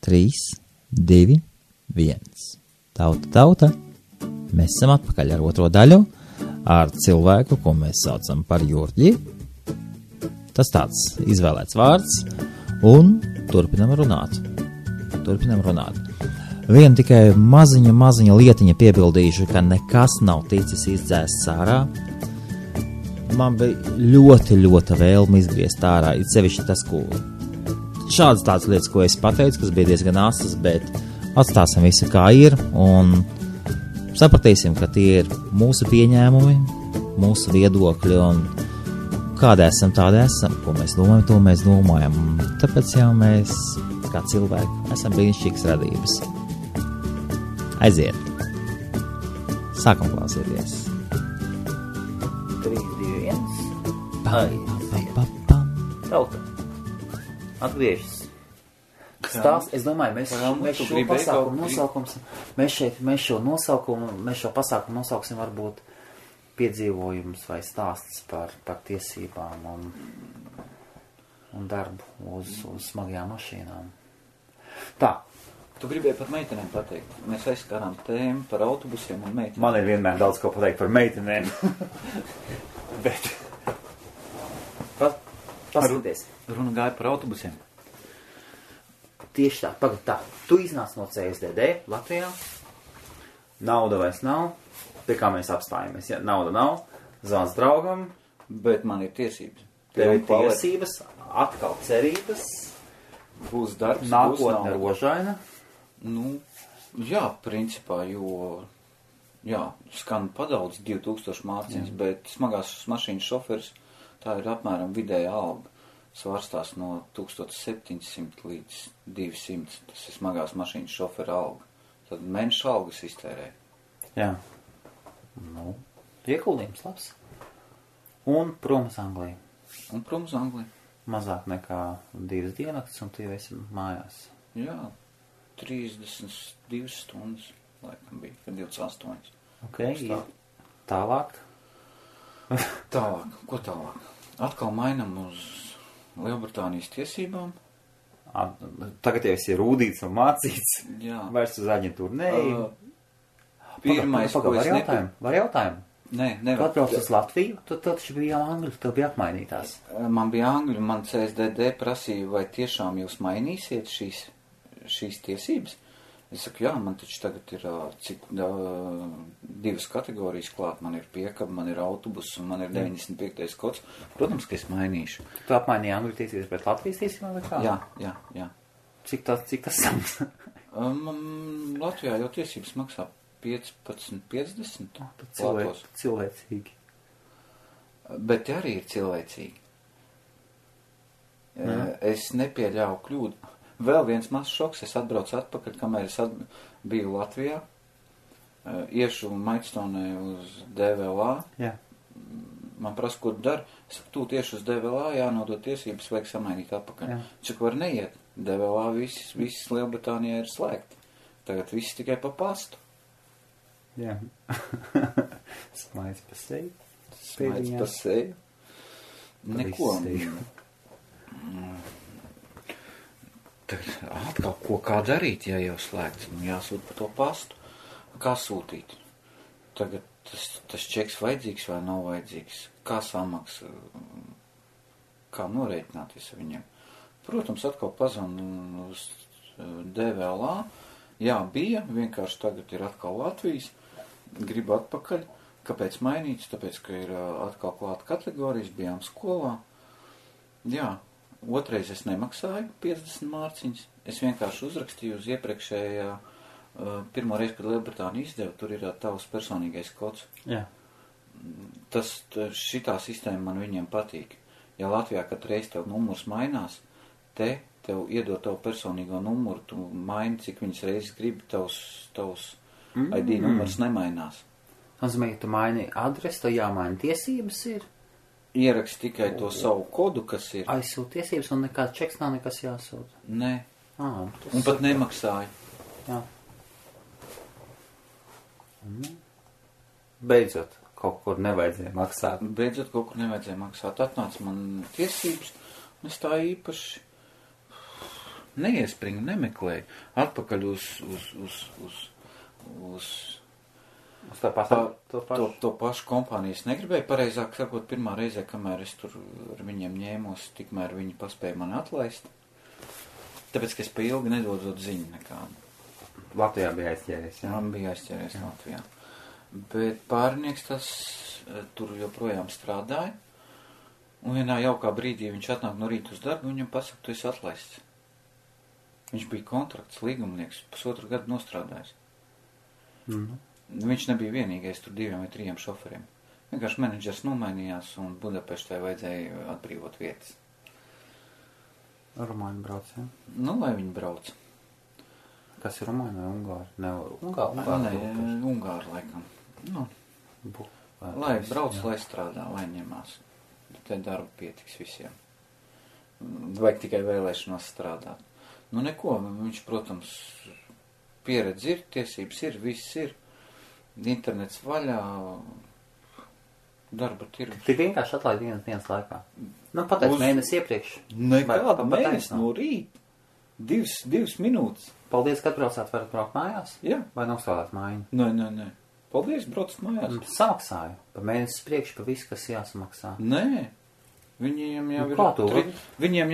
3, 2, 1. Tauta. Mēs esam atpakaļ ar otro daļu, ar cilvēku, ko mēs saucam par Jurģi. Tas tāds izvēlēts vārds, un turpinam runāt. Vienu tikai maziņa lietiņa piebildīšu, ka nekas nav ticis izdzēsts ārā. Man bija ļoti vēlme izgriezt ārā, it sevišķi tas, ko šādas tādas lietas, ko es pateicu, kas bija diezgan asas, bet atstāsim visu kā ir, un sapratīsim, ka tie ir mūsu pieņēmumi, mūsu viedokļi, un kādi esam, tādi esam, ko mēs domājam, to mēs domājam. Tāpēc jau mēs, kā cilvēki, esam brīnišķīgas radības. Aiziet! Sākam klausīties! 3, 2, 1. Aiziet! Tauta! Atgriežas! Stāst, es domāju, mēs šo pasākumu nosaukums, mēs šo pasākumu nosauksim varbūt piedzīvojums vai stāsts par tiesībām un darbu uz smagajām mašīnām. Tā. Tu gribēji par meitenēm pateikt. Mēs aizskārām tēmu par autobusiem un meitenēm. Man ir vienmēr daudz ko pateikt par meitenēm. Bet. Paskaties. Runa gāja par autobusiem. Tieši tā. Tu iznāc no CSDD Latvijā. Nauda vairs nav. Pie kā mēs apstājamies. Ja? Nauda nav. Zvans draugam. Bet man ir tiesības. Tev ir tiesības. Atkal cerības. Būs darbs. Nākotne rožaina. Nu, jā, principā, jo... Jā, skan padaudz 2000 mārciņas, bet smagās mašīnas šoferis, tā ir apmēram vidēja alga. Svārstās no 1700 līdz 200. Tas ir smagās mašīnas šofera alga. Tad mēneša algas iztērē. Jā. Nu, ieguldījums labs. Un prom uz Angliju. Mazāk nekā 2 diennakts, un tu jau esi mājās. Jā, 32 stundas, laikam bija, kad 28. Ok, tālāk. Ko tālāk? Atkal mainam uz Lielbritānijas tiesībām. Tagad jau esi rūdīts un mācīts. Jā. Vairs uz aģentūru neej. Pirmais, ko es Var jautājumu? Nē, nevar. Kad brauc uz Latviju, tad taču bija jau angļu, tev bija apmainītās. Man bija angļu, man CSDD prasīja, vai tiešām jūs mainīsiet šīs tiesības. Es saku, jā, man taču tagad ir 2 kategorijas klāt. Man ir piekaba, man ir autobus un man ir 95. kods. Protams, ka es mainīšu. Tu apmainīji angļu tiesības pret Latvijas tiesībām vai kā? Jā. Cik tas samaksā? Latvijā jau tiesības maksā 15,50. Cilvēcīgi. Bet arī ir cilvēcīgi. Es nepieļauju kļūdu. Vēl viens mazs šoks, es atbraucu atpakaļ, kamēr es biju Latvijā, iešu Maidstone uz DVLA. Jā. Man prasa, ko tu dari? Es saku, tu tieši uz DVLA, jānodot tiesības, vajag samainīt atpakaļ. Čak var neiet. DVLA viss Lielbritānijā ir slēgti. Tagad viss tikai pa pastu. Jā. Smaids pa seju. Smaids pa seju. Neko. Atkal, kā darīt, ja jau slēgts? Jāsūt pa to pastu. Kā sūtīt? Tagad tas čeks vajadzīgs vai nav vajadzīgs? Kā samaksa? Kā norēķināties ar viņiem? Protams, atkal pazvanu uz DVLA. Jā, bija, vienkārši tagad ir atkal Latvijas. Gribu atpakaļ. Kāpēc mainīts? Tāpēc, ka ir atkal klāta kategorijas, bijām skolā. Jā. Otrais es nemaksāju 50 mārciņas. Es vienkārši uzrakstīju uz iepriekšējā pirmo reizi, kad Lielbritānija izdeva, tur ir tavs personīgais kods. Jā. Šitā sistēma man viņiem patīk. Ja Latvijā katru reizi tev numurs mainās, tev iedod tavu personīgo numuru, tu maini, cik viņas reizes gribi, tavs ID numurs nemainās. Nozīmē, ka tu maini adresi, tev jāmaina tiesības ir. Ierakst tikai to savu kodu, kas ir. Aizsūt tiesības un nekāds čeks nav nekas jāsūt. Nē. Un pat nemaksāju. Jā. Beidzot, kaut kur nevajadzēja maksāt. Atnāca man tiesības, un es tā īpaši neiespringu, nemeklēju. Atpakaļ uz to pašu kompāniju es negribēju. Pareizāk sakot, pirmā reizē, kamēr es tur ar viņiem ņēmos, tikmēr viņi paspēja mani atlaist. Tāpēc, ka es pa ilgi nedodot ziņu nekādu. Latvijā bija aizķēries, jā? Man bija aizķēries Latvijā. Bet pārinieks tas tur joprojām strādāja. Un vienā jaukā brīdī viņš atnāk no rīta uz darbu, viņam pasaka, tu esi atlaists. Viņš bija kontrakts, līgumnieks, 1,5 gadu nostrādājis. Viņš nebija vienīgais tur 2 vai 3 šoferiem. Vienkārši menedžers nomainījās un Budapeštē vajadzēja atbrīvot vietas. Rumāņi brauc, jā? Nu, lai viņi brauc. Kas ir rumāņi vai ungāri? Ungāri laikam. Nu, lai brauc, lai strādā, lai ņemās. Te darba pietiks visiem. Vajag tikai vēlēšanos strādāt. Nu, neko, viņš, protams, pieredze ir, tiesības ir, viss ir. Internets vaļā, darba tirgus. Tik vienkārši atlaid dienas laikā. Nu, pateic mēnesi iepriekš. Nekāda mēnesi no rīta. 2 minūtes. Paldies, ka atbraucāt, varat braukt mājās? Jā. Vai nostrādāt mājiņu? Nē. Paldies, braucat mājās. Samaksāju. Pa mēnesi priekš, pa visu, kas jāsamaksā. Nē. Viņiem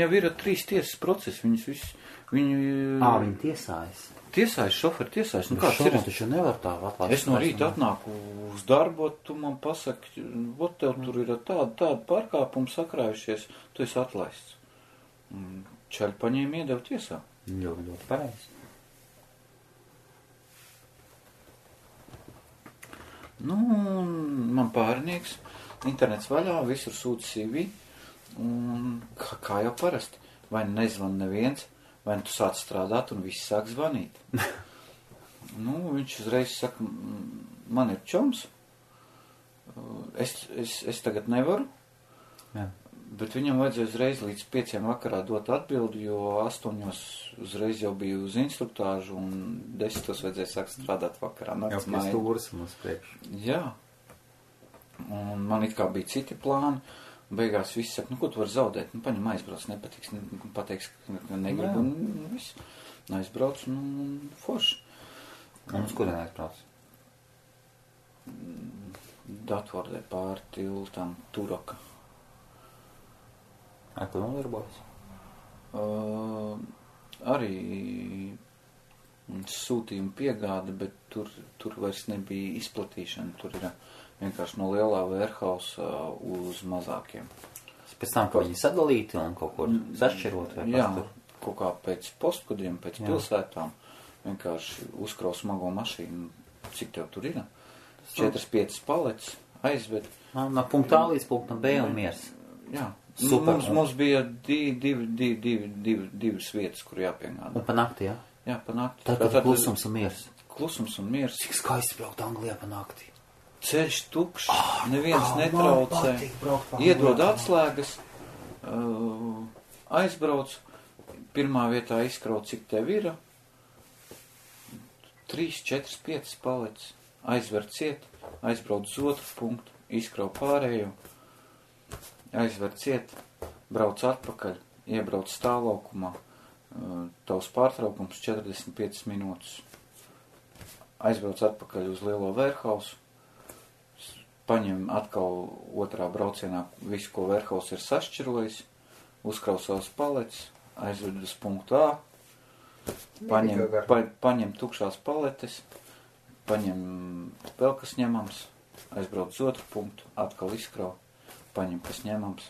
jau ir 3 tiesas procesi. Viņi tiesājas. Tiesājas, šoferi tiesājas. Nu, kāds ir? Taču nevar tā atlaist. Es no rīta atnāku uz darbu, tu man pasaki, ot tev tur ir tāda pārkāpuma sakrājušies, tu esi atlaists. Čaļi paņēma iedevu tiesā. Ļoti pareizi. Nu, man pārinieks, internets vaļā, visur sūta CV, un kā jau parasti, vai nezvan neviens, vai tu sāc strādāt un viss sāk zvanīt. Nu, viņš uzreiz saka, man ir čoms, es tagad nevaru, jā. Bet viņam vajadzēja uzreiz līdz 5 vakarā dot atbildi, jo 8 uzreiz jau bija uz instruktāžu un 10 vajadzēja sākt strādāt vakarā. Jau pēc stūras mums priekš. Jā. Un man it kā bija citi plāni. Beigās viss saka, nu ko tu vari zaudēt? Nu paņem aizbrauc, nepatiks, pateiks, ka negribu un viss. Aizbrauc un forši. Un uz kurien aizbrauc? Datvordē pāri tiltam Turaka. Ar ko nodarbojas? Arī sūtījuma piegāde, bet tur vairs nebija izplatīšana. Tur ir vienkārši no lielā warehouse uz mazākiem. Pēc tam, ka viņi sadalīti un kaut kur sašķirot? Jā, kaut kā pēc postkodiem, pēc pilsētām. Vienkārši uzkraus smago mašīnu. Cik tev tur ir? 4-5 paletes aizved. No punkta A līdz punktam B un miers. Jā. Super. Mums bija divas vietas, kur jāpiegādā. Un pa nakti, jā? Jā, pa nakti. Tātad klusums un miers. Klusums un miers. Cik skaisti braukt Anglijā pa nakti. Ceļš tukšs, neviens netraucē. Iedod atslēgas, aizbrauc, pirmā vietā izkraut, cik tev ir. 3, 4, 5 paletes. Aizver ciet, aizbrauc uz otru punktu, izkraut pārējo. Aizver ciet, brauc atpakaļ, iebrauc stāvlaukumā, tavs pārtraukums 45 minūtes. Aizbrauc atpakaļ uz lielo warehouse, paņem atkal otrā braucienā visu, ko warehouse ir sašķirojis, uzkraus savas paletes, aizved uz punktu A, paņem tukšās paletes, paņem vēl kas ņemams, aizbrauc uz otru punktu, atkal izkrau. Paņem, kas ņemams,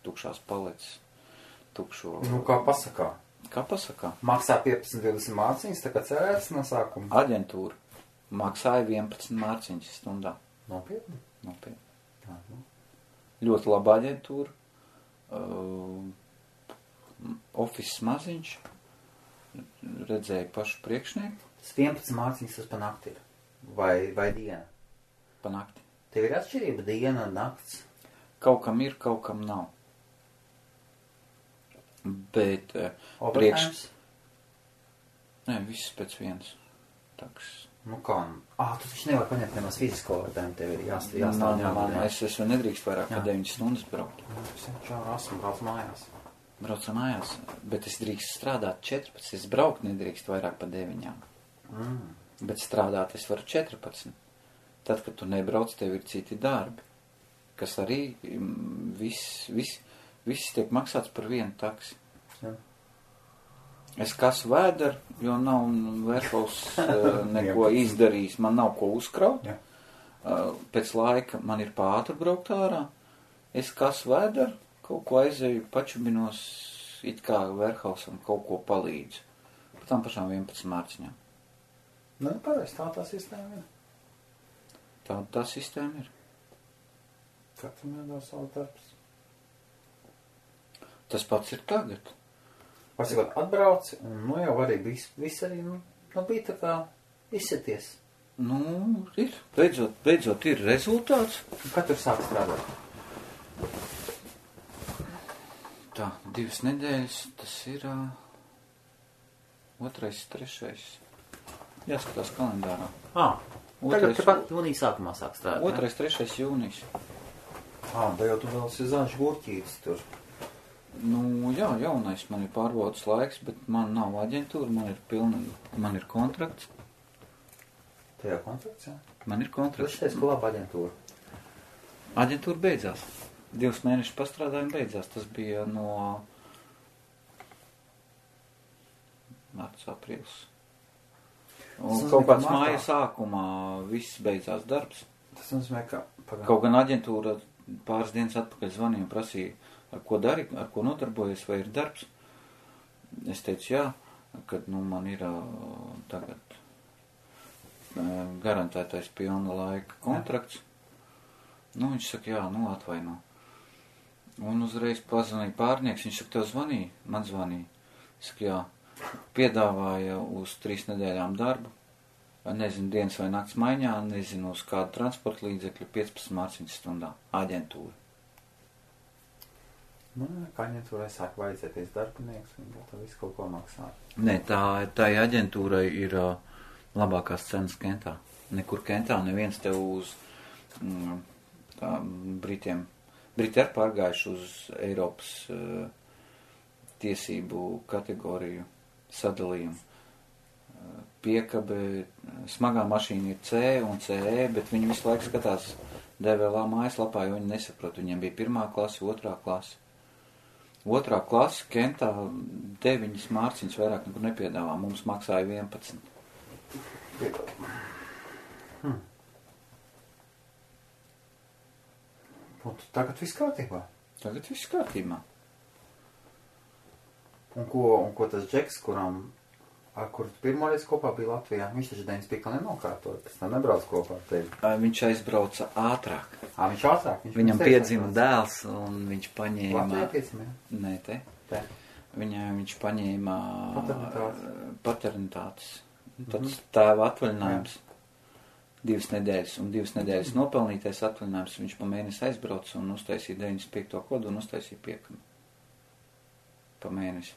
tukšās paletes, tukšo... Nu, kā pasakā? Kā pasakā? Maksā 15-20 mārciņas, tā kā cerēts no sākuma? Aģentūra maksāja 11 mārciņas stundā. Nopietni? Nopietni. Jā, nu. Ļoti laba aģentūra. Office maziņš. Redzēja pašu priekšnieku. 11 mārciņas tas pa nakti ir? Vai diena? Pa nakti. Tev ir atšķirība diena un nakts? Kaut kam ir, kaut kam nav. Bet Nē, viss pēc vienas. Taks. Nu kā? Tu taču nevar paņemt nemaz fizisko vērtējumu, tev ir jāstāv. Es nedrīkst vairāk kā 9 stundas braukt. Es jau esmu brauc mājās. Braucu mājās, bet es drīkst strādāt 14, es braukt nedrīkst vairāk pa 9. Bet strādāt es varu 14. Tad, kad tu nebrauc, tev ir citi darbi, kas arī viss tiek maksāts par vienu taksi. Jā. Es kasu vēderu, jo nav Verhovs neko izdarījis, man nav ko uzkraut. Jā. Pēc laika man ir pātri braukt ārā, es kasu vēderu, kaut ko aizēju, pačubinos, it kā Verhovsam kaut ko palīdzu. Par tām pašām 11 mārciņām. Nu, pareiz, tā sistēma ir. Tā sistēma ir. Katram jādara savu darbs. Tas pats ir tagad. Pasakot, atbrauci, un nu jau arī viss arī, bija tā kā izsities. Nu, ir. Beidzot ir rezultāts. Kad tur sāk strādāt? Tā, 2 nedēļas, tas ir 2., 3. Jāskatās kalendārā. Tagad tepat jūnija sākumā sāk strādāt. 2., 3. jūnijas. Da jau tu vēl esi zaļš gurķītis tur. Nu, jā, jaunais man ir pārbaudas laiks, bet man nav aģentūra, man ir kontrakts. Tajā kontrakts, jā? Man ir kontrakts. Tu teici, ka laba aģentūra. Aģentūra beidzās. 2 mēnešu pastrādājumi beidzās. Tas bija no marts, aprīlis. Un kaut kāds māja sākumā viss beidzās darbs. Tas nozīmē, ka... Kaut gan aģentūra pāris dienas atpakaļ zvanīja un prasīja, ar ko dari, ar ko nodarbojies, vai ir darbs. Es teicu, jā, kad man ir tagad garantētais pilna laika kontrakts. Nu, viņš saka, jā, atvaino. Un uzreiz pazvanīja pārnieks, viņš saka, tev zvanīja? Man zvanīja. Es saku, jā, piedāvāja uz 3 nedēļām darbu. Nezinu, dienas vai nakts maiņā, nezinu, uz kādu transporta līdzekļu 15 mārciņas stundā. Aģentūra. Kā aģentūrai sāk vajadzēties darbinieks, un tā visu kaut ko maksā. Nē, tā aģentūrai ir labākās cenas Kentā. Nekur Kentā neviens tev uz Britiem. Briti ir pārgājuši uz Eiropas tiesību kategoriju sadalījumu. Piekabe, smagā mašīna ir C un CE, bet viņi visu laiku skatās DVLA mājaslapā, jo viņi nesaprot. Viņiem bija 1. klase, 2. klase. 2. klase Kentā 9 mārciņas vairāk nekur nepiedāvā. Mums maksāja 11. Tagad viss kārtībā? Tagad viss kārtībā. Un ko tas Džeks, ar kuru pirmoreiz kopā bija Latvijā, viņš taču 95 nenokārtoja, pēc tam nebrauc kopā ar tevi. Viņš aizbrauca ātrāk. Viņš ātrāk? Viņam piedzima dēls, un viņš paņēma... Latvijā piedzima, jā? Nē, te. Viņš paņēma paternitātes. Tāds tēva atvaļinājums 2 nedēļas, un 2 nedēļas nopelnītais atvaļinājums. Viņš pa mēnesi aizbrauca un uztaisīja 95. kodu un uztaisīja piekami. Pa mēnesi.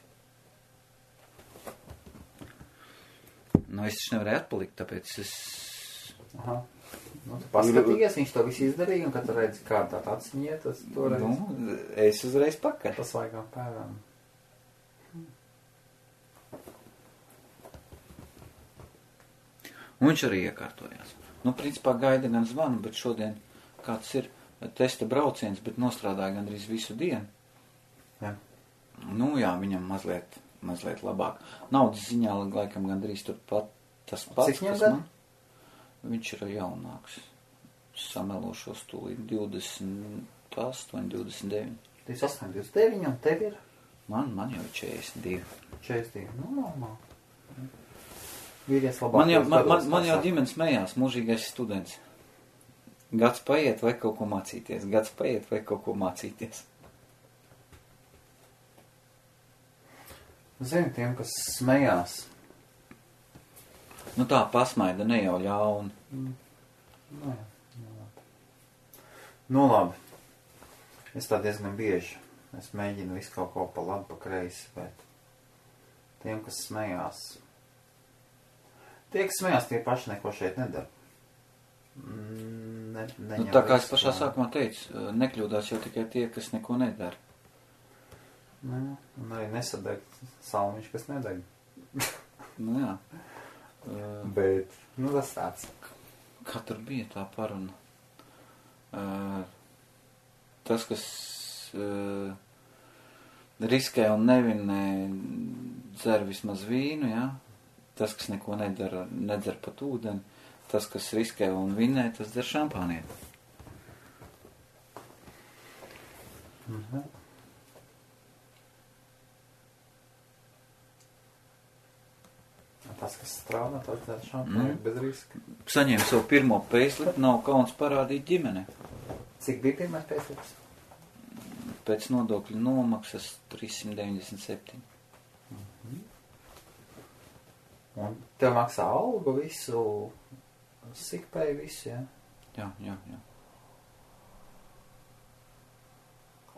Nu, es taču nevarēju atpalikt, tāpēc es... Aha. Tu paskatījies, viņš to visu izdarīja, un kad tu redzi, kā tā atsiņiet, tas toreiz... Nu, es uzreiz pakaļ. Tas vaigām pērām. Un viņš arī iekārtojās. Nu, principā gaida gan zvanu, bet šodien kāds ir testa brauciens, bet nostrādāja gandrīz visu dienu. Jā. Nu, jā, viņam mazliet labāk. Naudas ziņā laikam gandrīz turpat tas pats, kas man. Viņš ir jaunāks. Samelošos tūlīt 28, 29. 28, 29, un tev ir? Man jau 42. 42, nu normāli. Vīries labāk. Man jau ģimenes smējās, mūžīgais students. Gads paiet, vai kaut ko mācīties. Zini, tiem, kas smējās. Nu tā pasmaida, ne jau ļauni. Nu labi. Es tā diezgan bieži. Es mēģinu visu kaut ko pa labi, pa kreisi, bet tiem, kas smējās. Tie, kas smējās, tie paši neko šeit nedara. Tā kā es pašā sākumā teicu, nekļūdās jau tikai tie, kas neko nedara. Un arī nesadeg salmiņš, kas nedeg. Nu, jā. Bet, tas tāds. Kā tur bija tā paruna? Tas, kas riskē un nevinē, dzer vismaz vīnu, jā? Tas, kas neko nedara, nedzer pat ūdeni. Tas, kas riskē un vinē, tas dzer šampānieti. Tas, kas strādā, tas dzer šampānieti bez riska. Saņēmu savu pirmo pēclipu, nav kauns parādīt ģimene. Cik bija pirmais pēclips? Pēc nodokļu nomaksas 397. Un tev maksā algu visu, sikpēju visu, jā? Jā.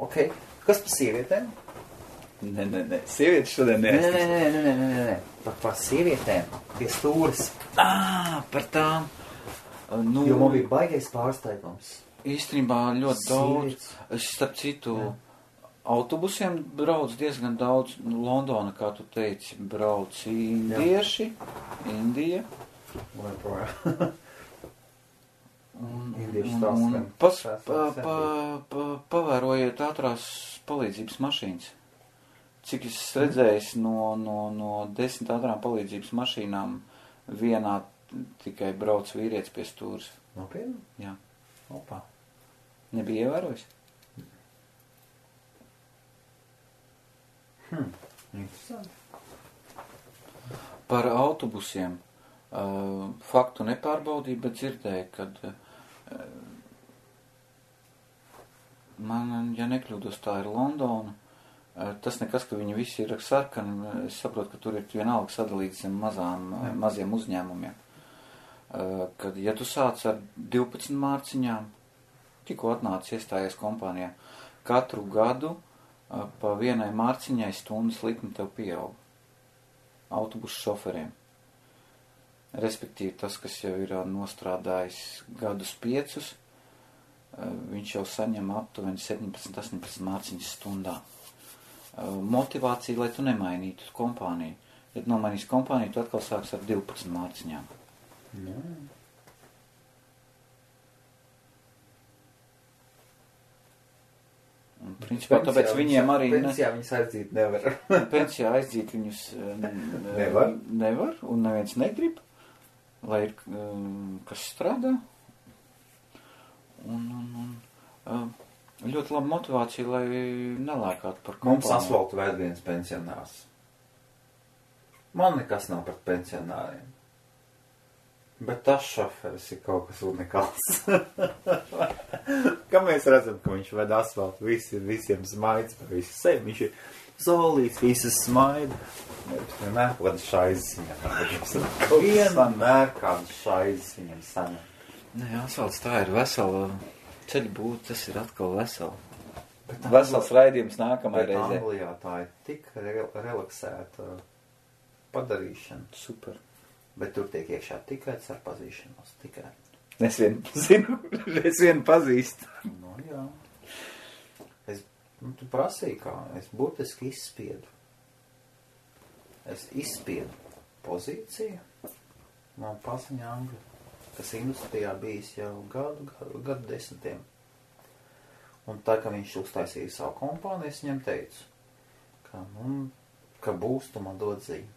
Ok, kas par sievietēm? Nē, sievietes šodien neesmu. Nē. Par sievietēm, pie stūres. Par tām. Nu, Jo man bija baigais pārsteigums. Īstenībā ļoti daudz. Es starp citu autobusiem brauc diezgan daudz. Londona, kā tu teici, brauc indieši. Indija. Un pavērojiet ātrās palīdzības mašīnas. Cik es redzējis no 10 ātrām palīdzības mašīnām vienā tikai brauc vīrietis pie stūres. Nopietni? Jā. Opā. Nebija ievērojis? Interesanti. Par autobusiem. Faktu nepārbaudīju, bet dzirdēju, kad man, ja nekļūdos, tā ir Londona. Tas nekas, ka viņi visi ir sarkani. Es saprotu, ka tur ir vienalga sadalīts zem maziem uzņēmumiem. Kad, ja tu sāc ar 12 mārciņām, tikko atnācis iestājies kompānijā, katru gadu pa vienai mārciņai stundas likme tev pieaug. Autobusu šoferiem. Respektīvi tas, kas jau ir nostrādājis gadus 5, viņš jau saņem aptuveni 17-18 mārciņas stundā. Motivācija, lai tu nemainītu kompāniju. Ja tu nomainīsi kompāniju, tu atkal sāks ar 12 mārciņām. Jā. Un, principā, tāpēc viņiem arī... Pensijā viņus aizdīt nevar. Pensijā aizdīt viņus nevar, un neviens negrib, lai ir kas strādā. Un ļoti laba motivācija, lai nelēkātu par kompāniju. Mums asfaltu vēl viens pensionārs. Man nekas nav par pensionāriem. Bet tas šoferis ir kaut kas unikāls. Kā mēs redzam, ka viņš ved asfaltu, visiem smaids par visu sevi. Viņš ir zolīts, visas smaida. Vienmēr kāda šaizes viņam. Vienmēr kāda šaizes viņam saņem. Nē, asfalts tā ir vesela. Ceļu būt, tas ir atkal vesela. Vesels raidījums nākamajai reizē. Anglijā tā ir tik relaksēta padarīšana. Super. Bet tur tiek iekšā tikai ar pazīšanos. Tikai. Es vienu pazīstu. No jā. Tu prasīji kā. Es burtiski izspiedu. Es izspiedu pozīciju. Man paziņa Angļu. Kas industrijā bijis jau gadu desmitiem. Un tā, ka viņš uztaisīja savu kompāniju, es viņam teicu, ka būs, tu man dod ziņu.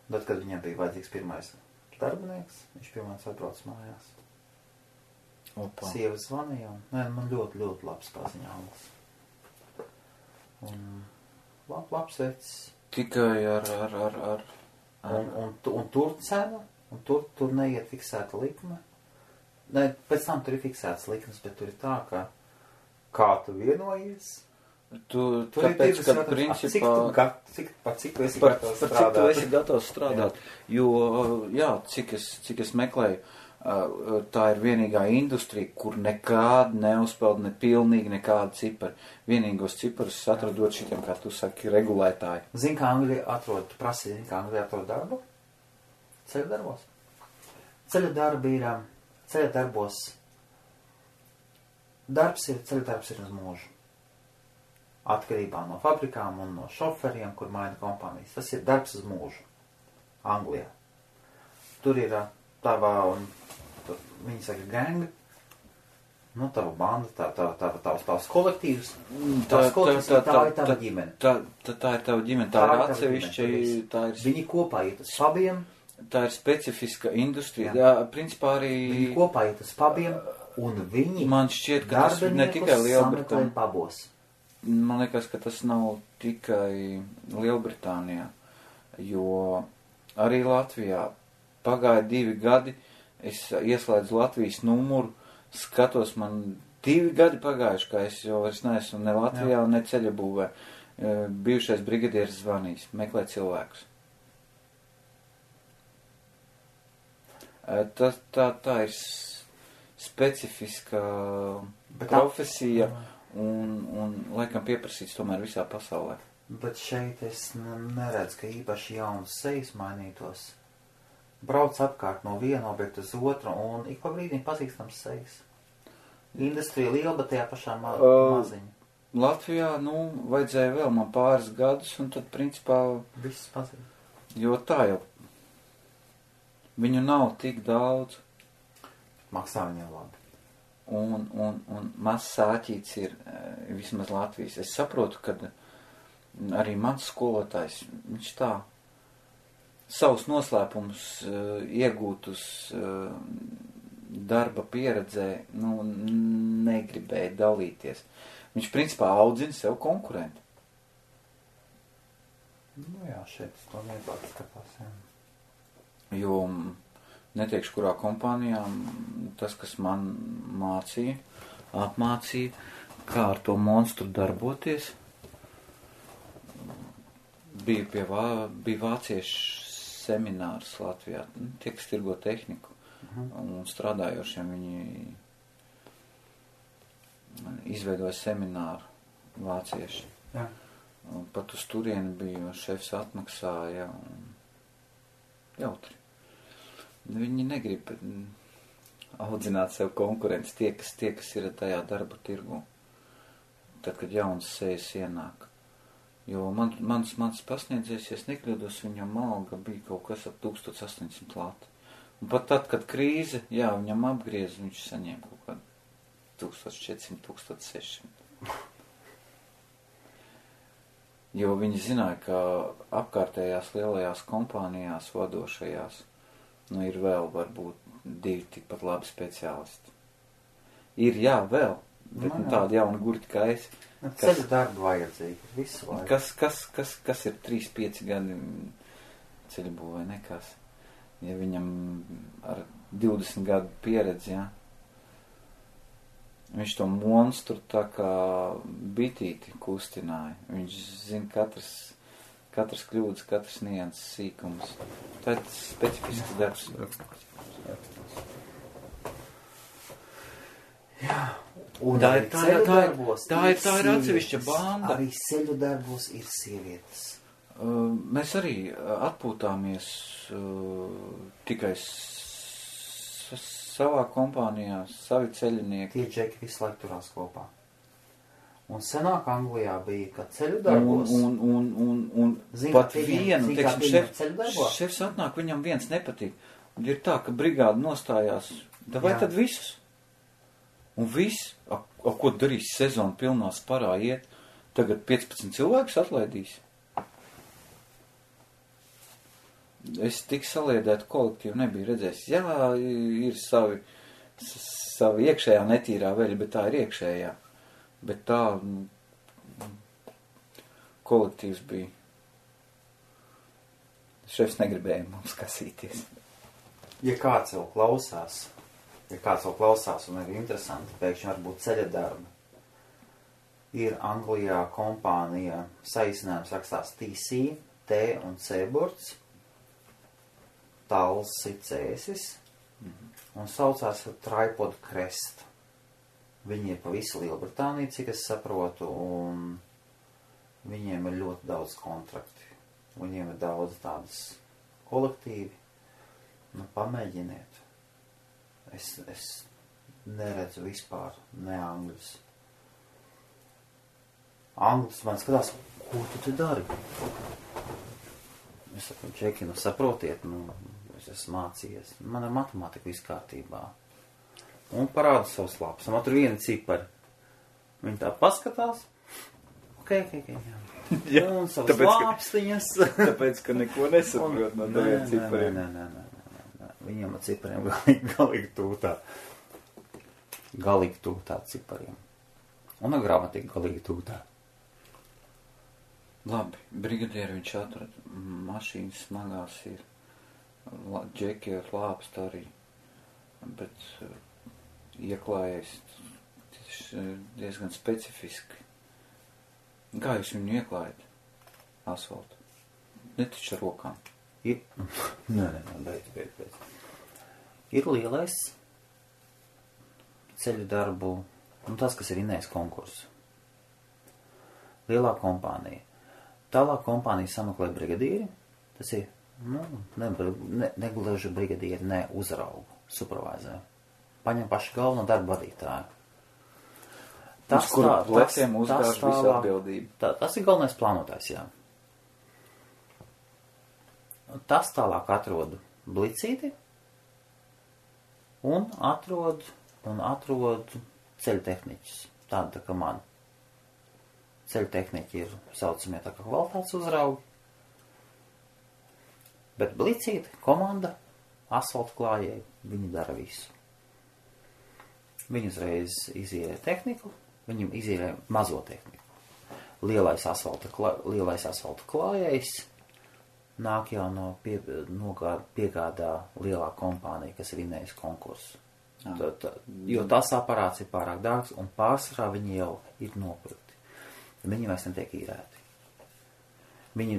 Tad, kad viņam bija vajadzīgs pirmais darbinieks, viņš pirmais atbrauc mājās. Opa. Sieva zvanīja, un man ļoti, ļoti labs paziņāms. Un labs vecs. Tikai ar... Un tur cena. Un tur neiet fiksēta likme. Ne, pēc tam tur ir fiksētas likmes, bet tur ir tā, ka kā tu vienojies. Tāpēc, ka principā... Cik tu esi gatavs strādāt? Cik tu esi gatavs strādāt. Jā. Jo, jā, cik es meklēju, tā ir vienīgā industrija, kur nekād neuzpeld ne pilnīgi nekāda cipari. Vienīgos ciparus atradot šitiem, kā tu saki, regulētāji. Zini, kā Angļi atrod, tu prasīji, kā Angļi atrod darbu? Ceļu darbos. Ceļu darbos. Ceļu darbs ir uz mūžu. atkarībā no fabrikām un no šoferiem, kur maina kompānijas. Tas ir darbs uz mūžu Anglijā. Tur ir tava, viņi saka, gang, nu, tava banda, tavs kolektīvs, tā ir tava ģimene. Tā ir tava ģimene, tā ir atsevišķa, Viņi kopā iet uz pubiem. Tā ir specifiska industrija. Jā, principā arī... Viņi kopā iet uz pubiem, un viņi man šķiet, ka tas ne tikai Lielbritānijā. Pabos. Man liekas, ka tas nav tikai Lielbritānijā, jo arī Latvijā pagāja 2 gadi, es ieslēdzu Latvijas numuru, skatos, man 2 gadi pagājuši, ka es jau vairs neesmu ne Latvijā, ne ceļabūvē. Bijušais brigadieris zvanīs, meklē cilvēkus. Tā ir specifiska profesija un laikam pieprasīts tomēr visā pasaulē. Bet šeit es neredzu, ka īpaši jaunas sejas mainītos. Brauc apkārt no viena objekta uz otru un ik pa brīdim pazīstams sejas. Industrija liela, bet tajā pašā maziņa. Latvijā, vajadzēja vēl man pāris gadus un tad principā... Viss pazīst. Jo tā jau... Viņu nav tik daudz. Maksā viņiem labi. Un mazs sāķīts ir vismaz Latvijas. Es saprotu, ka arī mans skolotājs, viņš tā savus noslēpumus iegūtus darba pieredzē, negribēja dalīties. Viņš principā audzina sev konkurentu. Jā, šeit to vieglāk skatās, jā. Jo neteikšu, kurā kompānijā tas, kas man apmācīja, kā ar to monstru darboties, bija vāciešu seminārs Latvijā, tie, kas tirgo tehniku, un strādājošiem viņi izveidoja semināru vācieši. Jā. Pat uz turieni bija, šefs atmaksāja, un jautri. Viņi negrib audzināt sev konkurences, tie, kas ir tajā darba tirgu, tad, kad jaunas sejas ienāk. Jo mans pasniedzējs, ja es nekļūdos, viņam alga bija kaut kas ap 1800 lati. Un pat tad, kad krīze, viņam apgriez, viņš saņēma kaut kādu 1400, 1600. Jo viņi zināja, ka apkārtējās lielajās kompānijās vadošajās, ir vēl varbūt 2 tikpat labi speciālisti. Ir, vēl, bet tādi jauni gurķi kā es. Ceļu darbu vajadzīgi, visu laiku. Kas ir 3-5 gadi ceļu būvē, nekas. Ja viņam ar 20 gadu pieredzi, viņš to monstru tā kā bitīti kustināja. Viņš zina katras kļūdas, katras nianses sīkums. Tā ir specifisks darbs. Jā. Un tā ir atsevišķa banda. Arī ceļu darbos ir sievietes. Mēs arī atpūtāmies tikai savā kompānijā, savi ceļinieki. Tie džeki visu laiku turās kopā. Un senāk Anglijā bija, ka ceļu darbos... Un pat vienu, šefs atnāk, viņam viens nepatīk. Un ir tā, ka brigāda nostājās, vai tad visus? Un viss, ko darīs sezonu pilnā sparā iet, tagad 15 cilvēkus atlaidīs. Es tik saliedētu kolektīvu nebiju redzējis. Jā, ir savi iekšējā netīrā veļa, bet tā ir iekšējā. Bet tā kolektīvs bija. Šefs negribēja mums kasīties. Ja kāds jau klausās un ir interesanti, pēkšņi varbūt ceļa darbi. Ir Anglijā kompānija, saīsinājums rakstās TC, T un C burts, Tals Cēsis, un saucās Tripod Crest. Viņi ir pa visu Lielbritāniju, cik es saprotu, un viņiem ir ļoti daudz kontrakti. Viņiem ir daudz tādas kolektīvi. Pamēģiniet. Es neredzu vispār ne angļus. Anglis man skatās, ko tu te dari? Es saku, Džeki, nu saprotiet, es esmu mācījies. Man ar matemātiku viss kārtībā. Un parāda savus lapus. Man tur viena cipari. Viņi tā paskatās. Ok, jā. Un savas lāpstiņas. Tāpēc, ka neko nesaprot no taviem cipariem. Nē. Viņiem ar cipariem galīgi tūtā cipariem. Un ar gramatika galīgi tūtā. Labi, brigadieri viņš atrada. Mašīnas smagās ir. Džeki ar lāpstu arī. Bet ieklājies diezgan specifiski. Kā jūs viņu ieklājat? Asfaltu. Netaču ar rokām. Nē, beidz. Ir lielais ceļu darbu, un tas, kas ir Inējas konkurss. Lielā kompānija. Tālāk kompānija sameklē brigadieri. Tas ir, negluži brigadieri, ne uzraugu, supervizēju. Paņem pašu galveno darbu vadītāju. Uz kuru pleciem uzgāž visu atbildību. Tas ir galvenais plānotājs, jā. Tas tālāk atrod blicīti un atrod ceļu tehniķus. Tāda tā kā man. Ceļu tehniķi ir saucamie tā kā kvalitātes uzraugi. Bet blicīti, komanda, asfaltu klājēji, viņi dara visu. Viņi uzreiz izīrē tehniku, viņam izīrē mazo tehniku. Lielais asfalta klājējs nāk jau piegādā lielā kompānija, kas ir Inējas konkurss. Jo tas aparāts ir pārāk dārgs un pārsvarā viņi jau ir nopirkti. Viņi vairs netiek īrēti. Viņi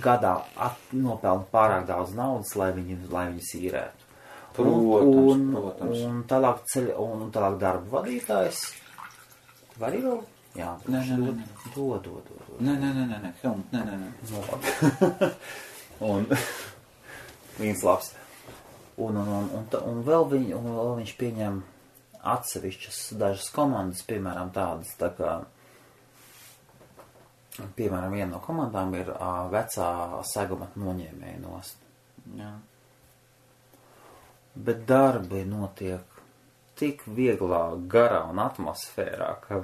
gadā nopelna pārāk daudz naudas, lai viņus īrētu. Protams. Un tālāk darba vadītājs. Var jau? Jā. Dod. Nē. Helmut, nē. Un viens labs. Un vēl viņš pieņem atsevišķas dažas komandas, piemēram tādas, tā kā, piemēram, viena no komandām ir vecā seguma noņēmēja nost. Jā. Bet darbi notiek tik vieglā, garā un atmosfērā, ka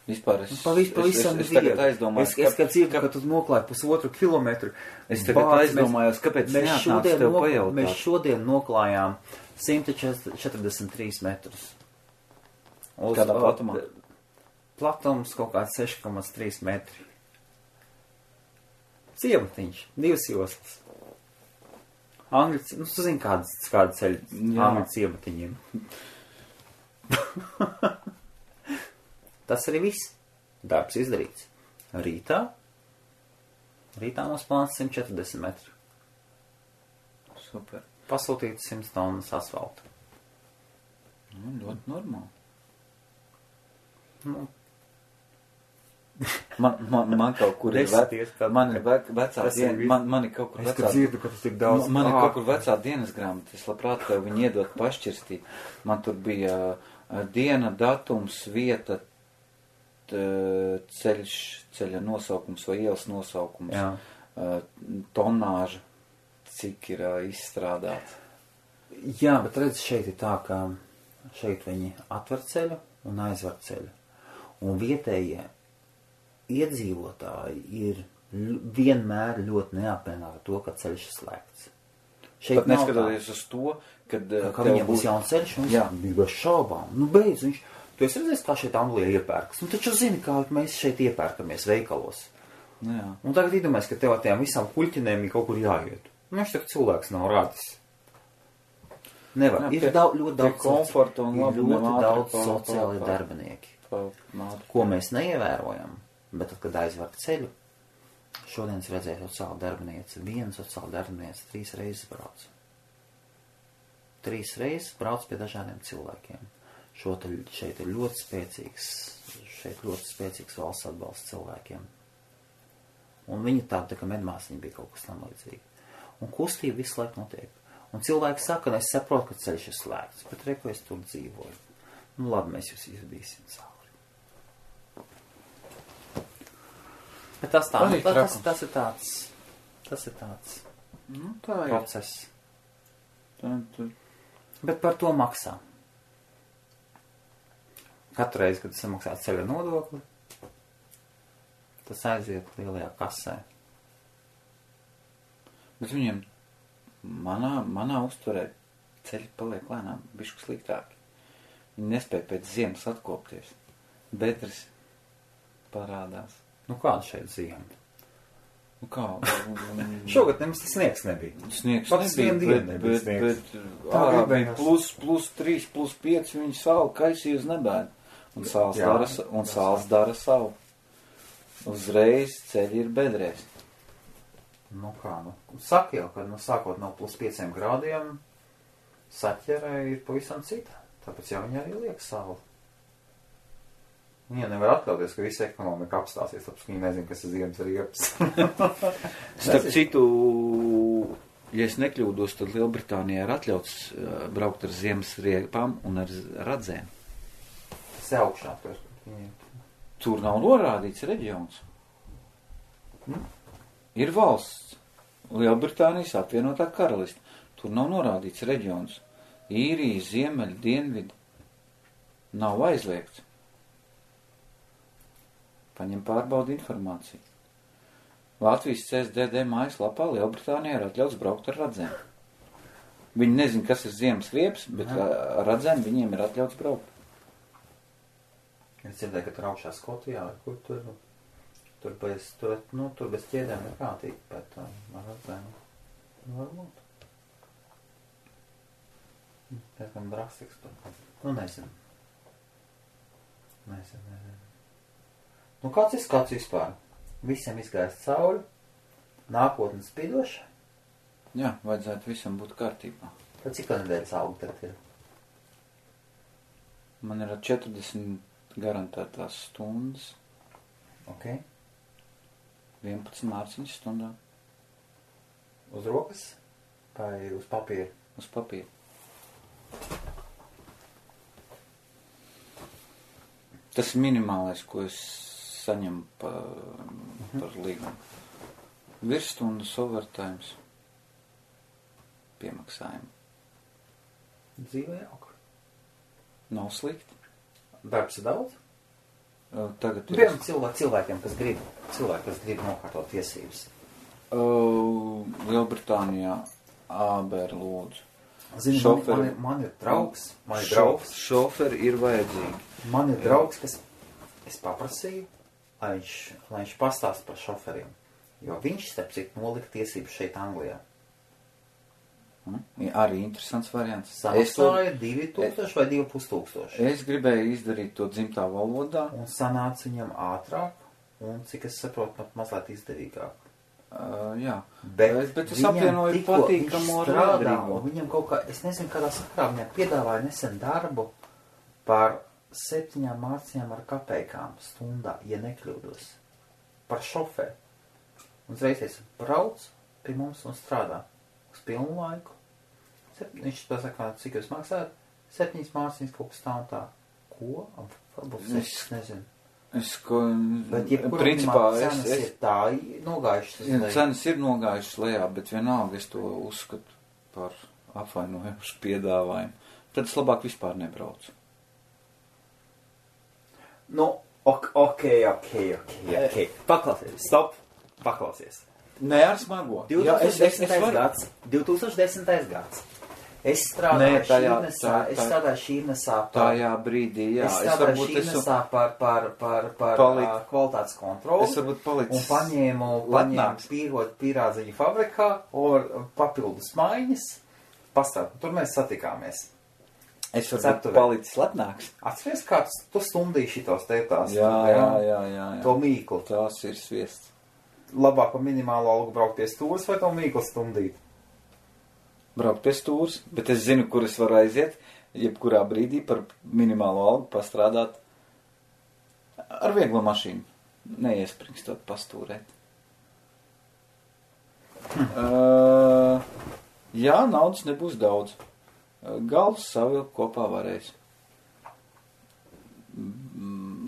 vispār pavisam es tagad aizdomājos, es kad dzirdu, ka tu noklāji 1,5 kilometru. Es tagad aizdomājos, kāpēc neatnāc tev pajautāt. Mēs šodien noklājām 143 metrus. Kādā platumā? Platums kaut kāds 6,3 metri. Ciematiņš, 2 joslas. Angļu, tu zini, kāda ceļa angļu ciematiņiem. Tas arī viss. Darbs izdarīts. Rītā mums plāns 140 metru. Super. Pasūtīt 100 tonnas asfaltu. Ļoti normāli. Man kaut kur ir vecā man ir kaut kur vecā. Es dzirdu, ka tas tik daudz. Man ir kaut kur vecā dienas grāmata. Es labprāt tev viņu iedot pašķirstīt. Man tur bija diena, datums, vieta, ceļa nosaukums vai ielas nosaukums, tonāža, cik ir izstrādāts. Jā, bet redz, šeit ir tā, ka šeit viņi atver ceļu un aizver ceļu. Un vietējie iedzīvotāji ir vienmēr ļoti neapmienāti to, ka ceļš ir slēgts. Pat neskatoties uz to, kad viņam būs jauns ceļš, un viņš bez šaubām. Beidz, tu esi redzējis, kā šeit Anglijā iepērkas. Taču zini, kā mēs šeit iepērkamies veikalos. Jā. Un tagad iedomājies, ka tev tiem visām kuļķinēm ir kaut kur jāiet. Viņš tak cilvēks nav radis. Nevar. Ir ļoti daudz sociāli darbinieki, ko mēs neievērojam. Bet tad, kad aizver ceļu, šodien es redzēju sociāli darbinieci. Viena sociāli darbinieci 3 reizes brauc. 3 reizes brauc pie dažādiem cilvēkiem. Šeit ir ļoti spēcīgs valsts atbalsts cilvēkiem. Un viņi tā kā medmāsiņi bija kaut kas tam līdzīgi. Un kustība visu laiku notiek. Un cilvēki saka, es saprotu, ka ceļš ir slēgts, bet reku es tur dzīvoju. Labi, mēs jūs izvedīsim cauri. Bet tas tā, Arī tas ir tāds Nu, tā ir. process. Tā. Bet par to maksā. Katru reizi, kad samaksā ceļa nodokli, tas aiziet lielajā kasē. Bet viņiem manā uztverē ceļi paliek lēnām bišku sliktāki. Viņi nespēja pēc ziemas atkopties. Bedres parādās. Nu kāda šeit ziema? Nu kā? Šogad nemaz tas sniegs nebija. Sniegs Pats nebija, vienu dienu nebija bet sniegs. ārā bija gribējās. plus 3, plus 5, viņi sauli kaisīja uz nebēdu. Un sāls dara savu. Uzreiz ceļi ir bedrēs. Nu kā, saka jau, ka sākot no plus 5 grādiem, saķerē ir pavisam cita. Tāpēc jau viņi arī liek savu. Viņi nevar atļauties, ka visa ekonomika apstāsies, tāpēc viņi nezin, kas ir ziemas riepas. Starp citu, ja es nekļūdos, tad Lielbritānijā ir atļauts braukt ar ziemas riepām un ar radzēm. Tas ir augšā. Tur nav norādīts reģions. Ir valsts. Lielbritānijas apvienotā karaliste. Tur nav norādīts reģions. Īrija, ziemeļi, dienvidi. Nav aizliegts. Paņem pārbaudi informāciju. Latvijas CSDD mājaslapā Lielbritānijā ir atļauts braukt ar radzēm. Viņi nezin, kas ir ziemas riepas, bet ar radzēm viņiem ir atļauts braukt. Es dzirdēju, ka tur augšā Skotijā, kur tur bez ķēdēm neprātīgi, bet ar radzēm varbūt. Pēc drastiks tur. Nu, nezinu. Nu, kāds ir skats vispār? Visiem izgājis cauri, nākotnes spidoša. Jā, vajadzētu visam būt kārtībā. Tad cik nedēļas augi tad ir? Man ir 40 garantētās stundas. Ok. 11 mārciņas stundā. Uz rokas? Vai uz papīra? Uz papīra. Tas ir minimālais, ko es saņemu par līgumu. Virsstundas overtimes. Piemaksājumi. Dzīvē jauka. Nav slikti. Darbs ir daudz? Tagad ir... Piemēram cilvēkiem, kas grib nokārtot tiesības. Lielbritānijā ābēr lūdzu. Zini, man ir draugs. Šoferi ir vajadzīgi. Man ir draugs, kas es paprasīju, lai viņš pastāst par šoferiem. Jo viņš, starp citu, nolika tiesības šeit Anglijā. Arī interesants variants. Samaksāja 2000 vai 2500. Es gribēju izdarīt to dzimtā valodā. Un sanāca viņam ātrāk, un cik es saprotu, pat mazliet izdevīgāk. Jā. Bet es apvienoju patīkamo ar liederīgo. Viņam kaut kā, es nezinu, kādā sakrā viņam piedāvāja nesen darbu par 7 mārciņām ar kapeikām stundā, ja nekļūdos. Par šoferi. Un uzreiz brauc pie mums un strādā uz pilnu laiku. Viņš pasaka, cik jūs maksājat? 7 mārciņas kaut kas tā un tā. Ko? Varbūt 6, nezinu. Bet principā cenas ir tā nogājušas lejā. Cenas ir nogājušas lejā, bet vienalga es to uzskatu par apvainojušu piedāvājumu. Tad es labāk vispār nebraucu. Nu, ok. Paklausies, stop, paklausies. Nē, ar smago. 2010. gads. Es strādāju šīnesā tajā brīdī, jā. Es strādāju šīnesā par kvalitātes kontroli. Es varbūt palicis un paņēmu pīrādziņu fabrikā un papildus maiņas. Pastrādāt, tur mēs satikāmies. Es varbūt palicis lepnāks. Atceries, kā tu stundīji šitos tētās? Jā. To mīklu. Tās ir sviests. Labāk par minimālo algu braukt pie stūras vai to mīklu stundīt? Braukt pie stūras, bet es zinu, kur es varu aiziet, jebkurā brīdī par minimālo algu pastrādāt ar vieglo mašīnu. Neiespringstot pastūrēt. Jā, naudas nebūs daudz. Galvas savilkt kopā varēs.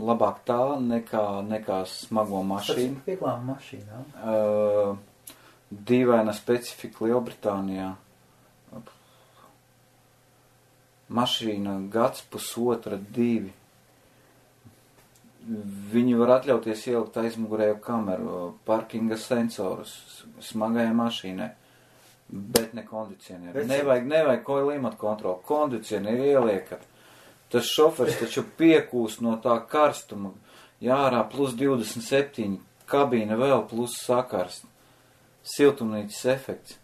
labāk tā nekā smago mašīnu. Tas ir vieglām mašīnām. Dīvaina specifika Lielbritānijā. Mašīna gads, pusotra, 2. Viņi var atļauties ielikt aizmugurējo kameru, parkinga sensorus smagajai mašīnai, bet ne kondicionieru. Nevajag klimata kontroli. Kondicionieru ieliekat. Tas šofers taču piekūst no tā karstuma. Jārā plus 27, kabīne vēl plus sakarst. Siltumnīcas efekts.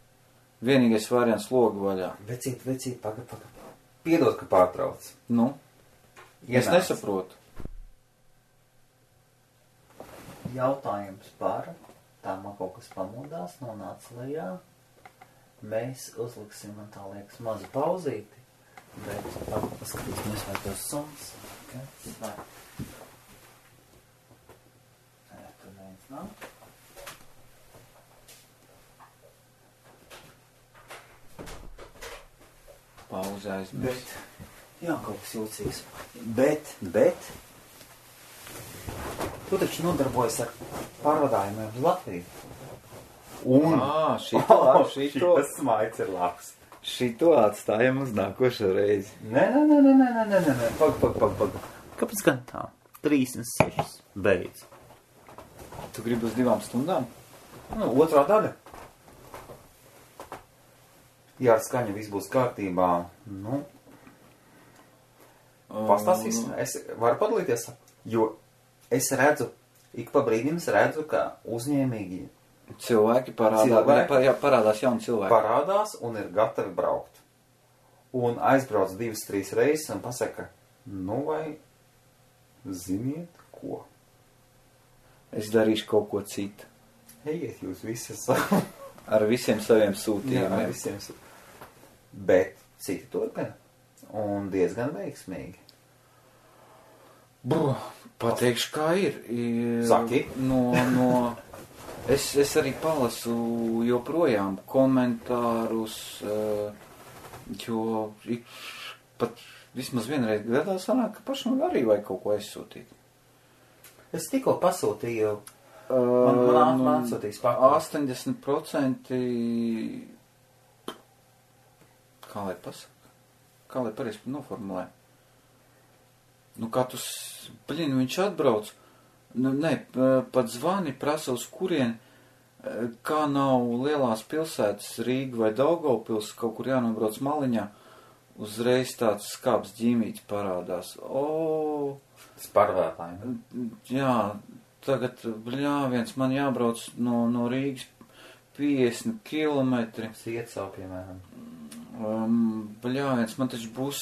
Vienīgais variants logu vaļā. Vecīt, pagad. Piedod, ka pārtrauc. Nu? Es nesaprotu. Jautājums par, tā man kaut kas pamodās, nonāca lejā. Mēs uzliksim, man tā liekas, mazu pauzīti, bet paskatīsimies, vai tos suns. Okay. Tur neviens nav. Pauze aizmirst. Jā, kaut kas jūcīgs. Bet tu taču nodarbojas ar pārvadājumiem uz Latviju. Un šito smaids ir labs. Šito atstājam uz nākošo reizi. Nē. Pag. Kāpēc gan tā? 36. Beidz. Tu gribi uz 2 stundām? Otrā daļa. Ja ar skaņu viss būs kārtībā, pastāstīsim, es varu padalīties, jo es redzu, ik pa brīdim es redzu, ka uzņēmīgi cilvēki parādās jauni cilvēki. Parādās un ir gatavi braukt. Un aizbrauc 2-3 reizes un pasaka, vai ziniet ko? Es darīšu kaut ko citu. Ejiet jūs visas ar visiem saviem sūtījumiem. Jā, ar visiem sūtījumiem. Bet citi turpina. Un diezgan veiksmīgi. Pateikšu, kā ir. Saki. Es arī palasu joprojām komentārus, jo pat vismaz vienreiz gadā sanāk, ka pašam arī vajag kaut ko aizsūtīt. Es tikko pasūtīju, man atsūtīs pakāpes. 80% kā lai pasaka? Kā lai pareizi noformulē? Viņš atbrauc, pat zvani, prasa uz kurien, kā nav lielās pilsētas, Rīga vai Daugavpils, kaut kur jānobrauc maliņā, uzreiz tāds skāps ģīmīts parādās. Sparvētājiem. Jā, tagad, viens man jābrauc no Rīgas 50 kilometri. Sietsau, piemēram. Man taču būs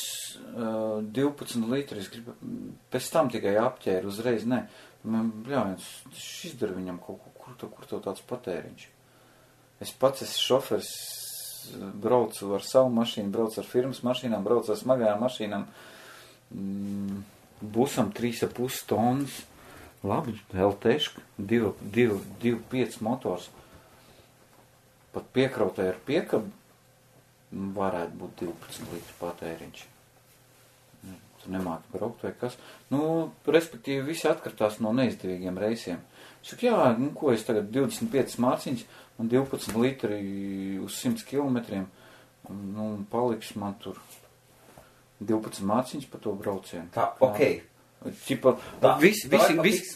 12 litri, es gribu, pēc tam tikai apķēru uzreiz, nē. Šis izdara viņam kaut ko, kur tev tāds patēriņš. Es pats esmu šofers, braucu ar savu mašīnu, braucu ar firmas mašīnām, braucu ar smagajām mašīnām. Busam 3,5 tonnas, labi, LT-ška, 2,5 motors. Pat piekrautē ar piekabu varētu būt 12 litru patēriņš. Tu nemāki braukt vai kas. Respektīvi, visi atkartās no neizdevīgiem reisiem. Saka, ko es tagad 25 mārciņas un 12 litri uz 100 kilometriem, paliks man tur 12 mārciņas pa to braucienu. Tā, okei.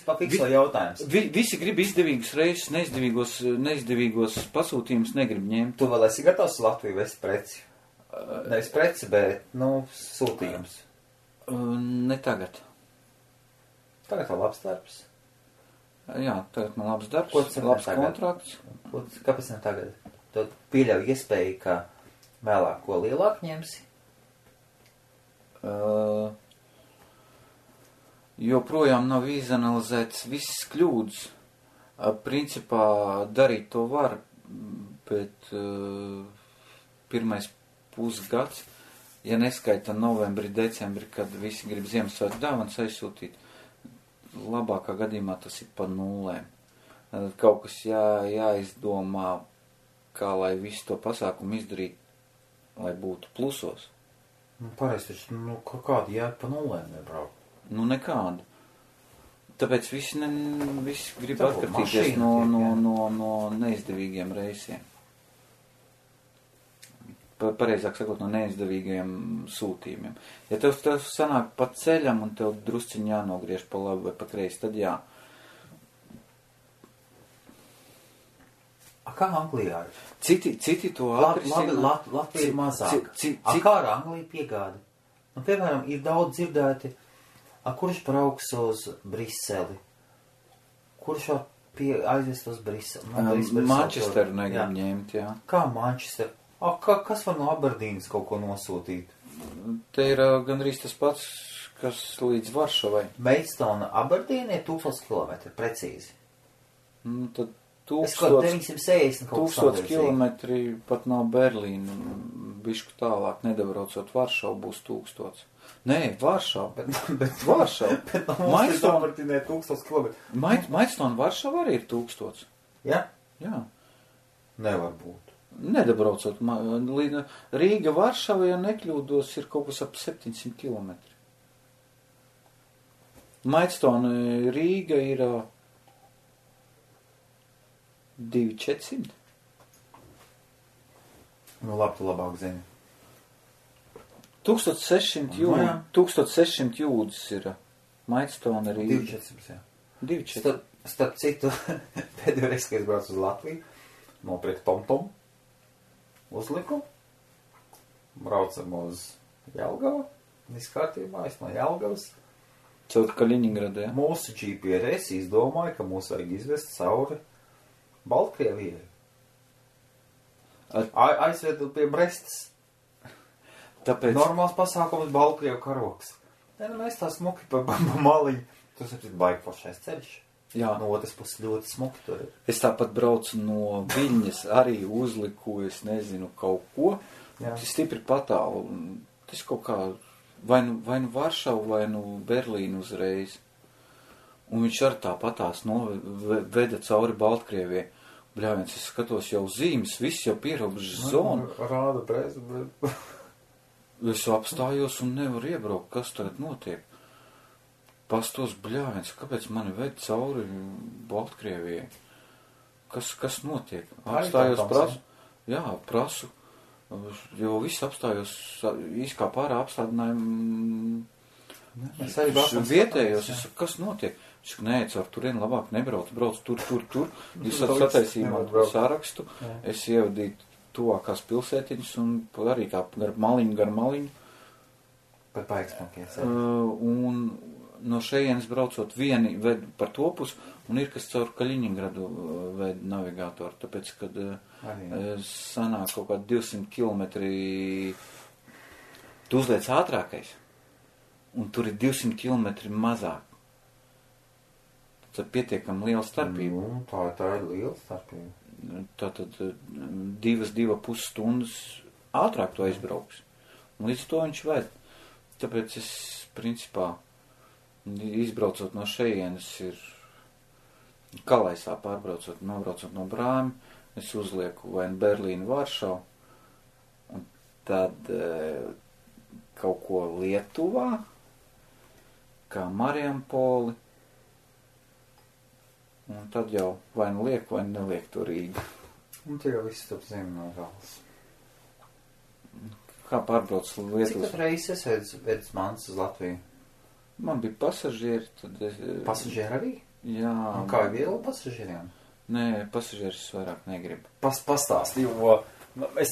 Pafikslo jautājums. Visi grib izdevīgus reisus, neizdevīgos pasūtījumus negrib ņemt. Tu vēl esi gatavs Latviju vest preci? Nevis preci, bet, sūtījums. Ne tagad. Tagad vēl labs darbs. Jā, tagad man labs darbs, labs kontrakts. Kāpēc ne tagad? Tu pieļauj iespēju, ka vēlāk ko lielāk ņemsi? Joprojām nav izanalizēts visas kļūdas. Principā darīt to var, bet pirmais pusgads, ja neskaita novembri, decembri, kad visi grib Ziemassvētku dāvanas aizsūtīt, labākā gadījumā tas ir pa nulēm. Kaut kas jāizdomā, kā lai visu to pasākumu izdarīt, lai būtu plusos. Pareizi, taču, kādi jāiet pa nulēm nebraukt? Nekādu. Tāpēc visi grib Tā, atkartīties no neizdevīgiem reisiem. Pareizāk sakot, no neizdevīgiem sūtījumiem. Ja tev sanāk pa ceļam un tev drusciņi jānogriež pa labi vai pa kreisi, tad jā. Kā Anglijā ir? Citi to atrisina. Latvija ir mazāk. Kā ar Angliju piegādi? Nu, piemēram, ir daudz dzirdēti, kurš brauks uz Briseli? Kurš var aizvest uz Briseli? Manchesteru negrib ņemt, jā. Kā Manchester? Kas var no Aberdīnas kaut ko nosūtīt? Te ir gandrīz tas pats, kas līdz Varšavai. Maidstone Aberdīna ir 1000 km, precīzi. Tad 960 kaut 1000 kilometri pat nav Berlīna. Bišku tālāk, nedabraucot Varšavu, būs 1000. Nē, Varšava. Bet Varšava. Bet Maidstone Aberdīna ir 1000 km. Maidstone Varšava arī ir 1000. Ja? Jā. Nevar būt. Nedabraucot. Rīga Varšava, ja nekļūdos, ir kaut kas ap 700 km. Maidstone Rīga ir 2400. Nu, labi, tu labāk zini. 1600 jūdzes ir Maidstone Rīga. 2400, jā. 2400. Starp citu, pēdējo reizi, kad es braucu uz Latviju, nopirku TomTom, uzliku, braucam uz Jelgavu, viss kārtībā, es no Jelgavas. Caur Kaļiņingradu, jā? Mūsu GPS izdomāja, ka mūs vajag izvest cauri Baltkrievijai. Aizvedu pie Brestas. Tāpēc... Normāls pasākums Baltkrievu karoks. Mēs tā smuki pa maliņu. Tas ir baigi plašais ceļš. Jā. No otras puses ļoti smuki tur ir. Es tāpat braucu no Viļņas, arī uzliku, es nezinu, kaut ko. Jā. Tas stipri patālu. Tas kaut kā vai nu Varšavu, vai nu Berlīnu uzreiz. Un viņš ar tā patās veda cauri Baltkrievijai. Bļāviens, es skatos jau zīmes, viss jau pierobežas zonu. Rāda bez, bet... Es apstājos un nevaru iebraukt, kas tagad notiek. Pastos, bļāviens, kāpēc mani ved cauri Baltkrievijai? Kas notiek? Apstājos, prasu, jo viss apstājos, īskā pārā apstādinājumu vietējos, es saku, kas notiek? Es saku, nē, caur turien labāk nebrauc, brauc tur. Jūs sataisījumā sarakstu, es ievadīju tuvākās pilsētiņas un arī kā gar maliņu. Par paiksmakies. Un no šejienes braucot vieni ved par to pusi, un ir kas caur Kaļiņingradu ved navigātoru, tāpēc, kad sanāk kaut kā 200 kilometri, tu uzliec ātrākais, un tur ir 200 kilometri mazāk. Tad pietiekam liela starpība. Tā ir liela starpība. Tātad 2,5 stundas ātrāk to aizbrauks. Un līdz to viņš ved. Tāpēc es, principā, izbraucot no šejienes ir Kalaisā pārbraucot, nobraucot no Brāmi, es uzlieku vai Berlīnu, Varšavu, un tad kaut ko Lietuvā, kā Marijampoli, un tad jau vai nu liek, vai neliek to Rīgu. Un tie jau viss top zem no gals. Kā pārbrauc Lietuvas? Cik tad reizes vedis mans uz Latviju? Man bija pasažieri, tad es... Pasažieri arī? Jā. Un kā ir viegli pasažieriem? Nē, pasažieris vairāk negribu. Pastāsti, jo... Es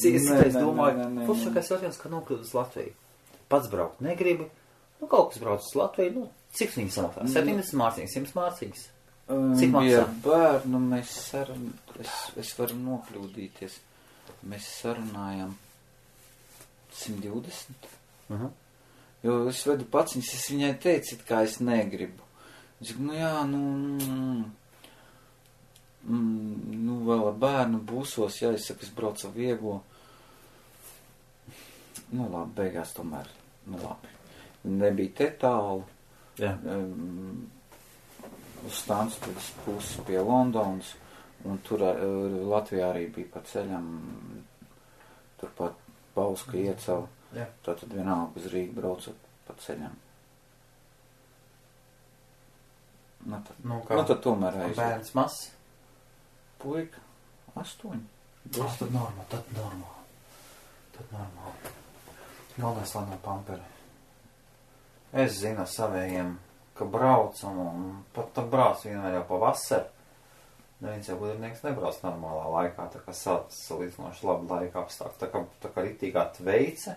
domāju, pušakais jautājums, ka nokļūt uz Latviju. Pats braukt negribu. Nu, kaut kas brauc uz Latviju, cik viņi samaksā? 70 mārciņas, 100 mārciņas? Cik maksā? Ja bērnu es varu nokļūdīties. Mēs sarunājam 120. Jo es vedu paciņas, es viņai teicu, kā es negribu. Es saku, vēl ar bērnu būsos, es saku, es braucu ar vieglo. Labi, beigās tomēr, labi. Nebija te tālu. Jā. Uz Stansted pusi pie Londonas, un tur Latvijā arī bija pa ceļam, turpat Bauska iecava, tātad vienalga uz Rīgu braucot pa ceļam. Tad tomēr aizved. Bērns mazs? Puika, 8. Tad normāli. Galvenais, lai nav pamperi. Es zinu savējiem, ka brauc un pat brauc vienmēr jau pa vasaru. Neviens jau gudrinieks nebrauc normālā laikā, tā kā salīdzinoši labi laika apstākļi. Tā kā ritīgā tveice,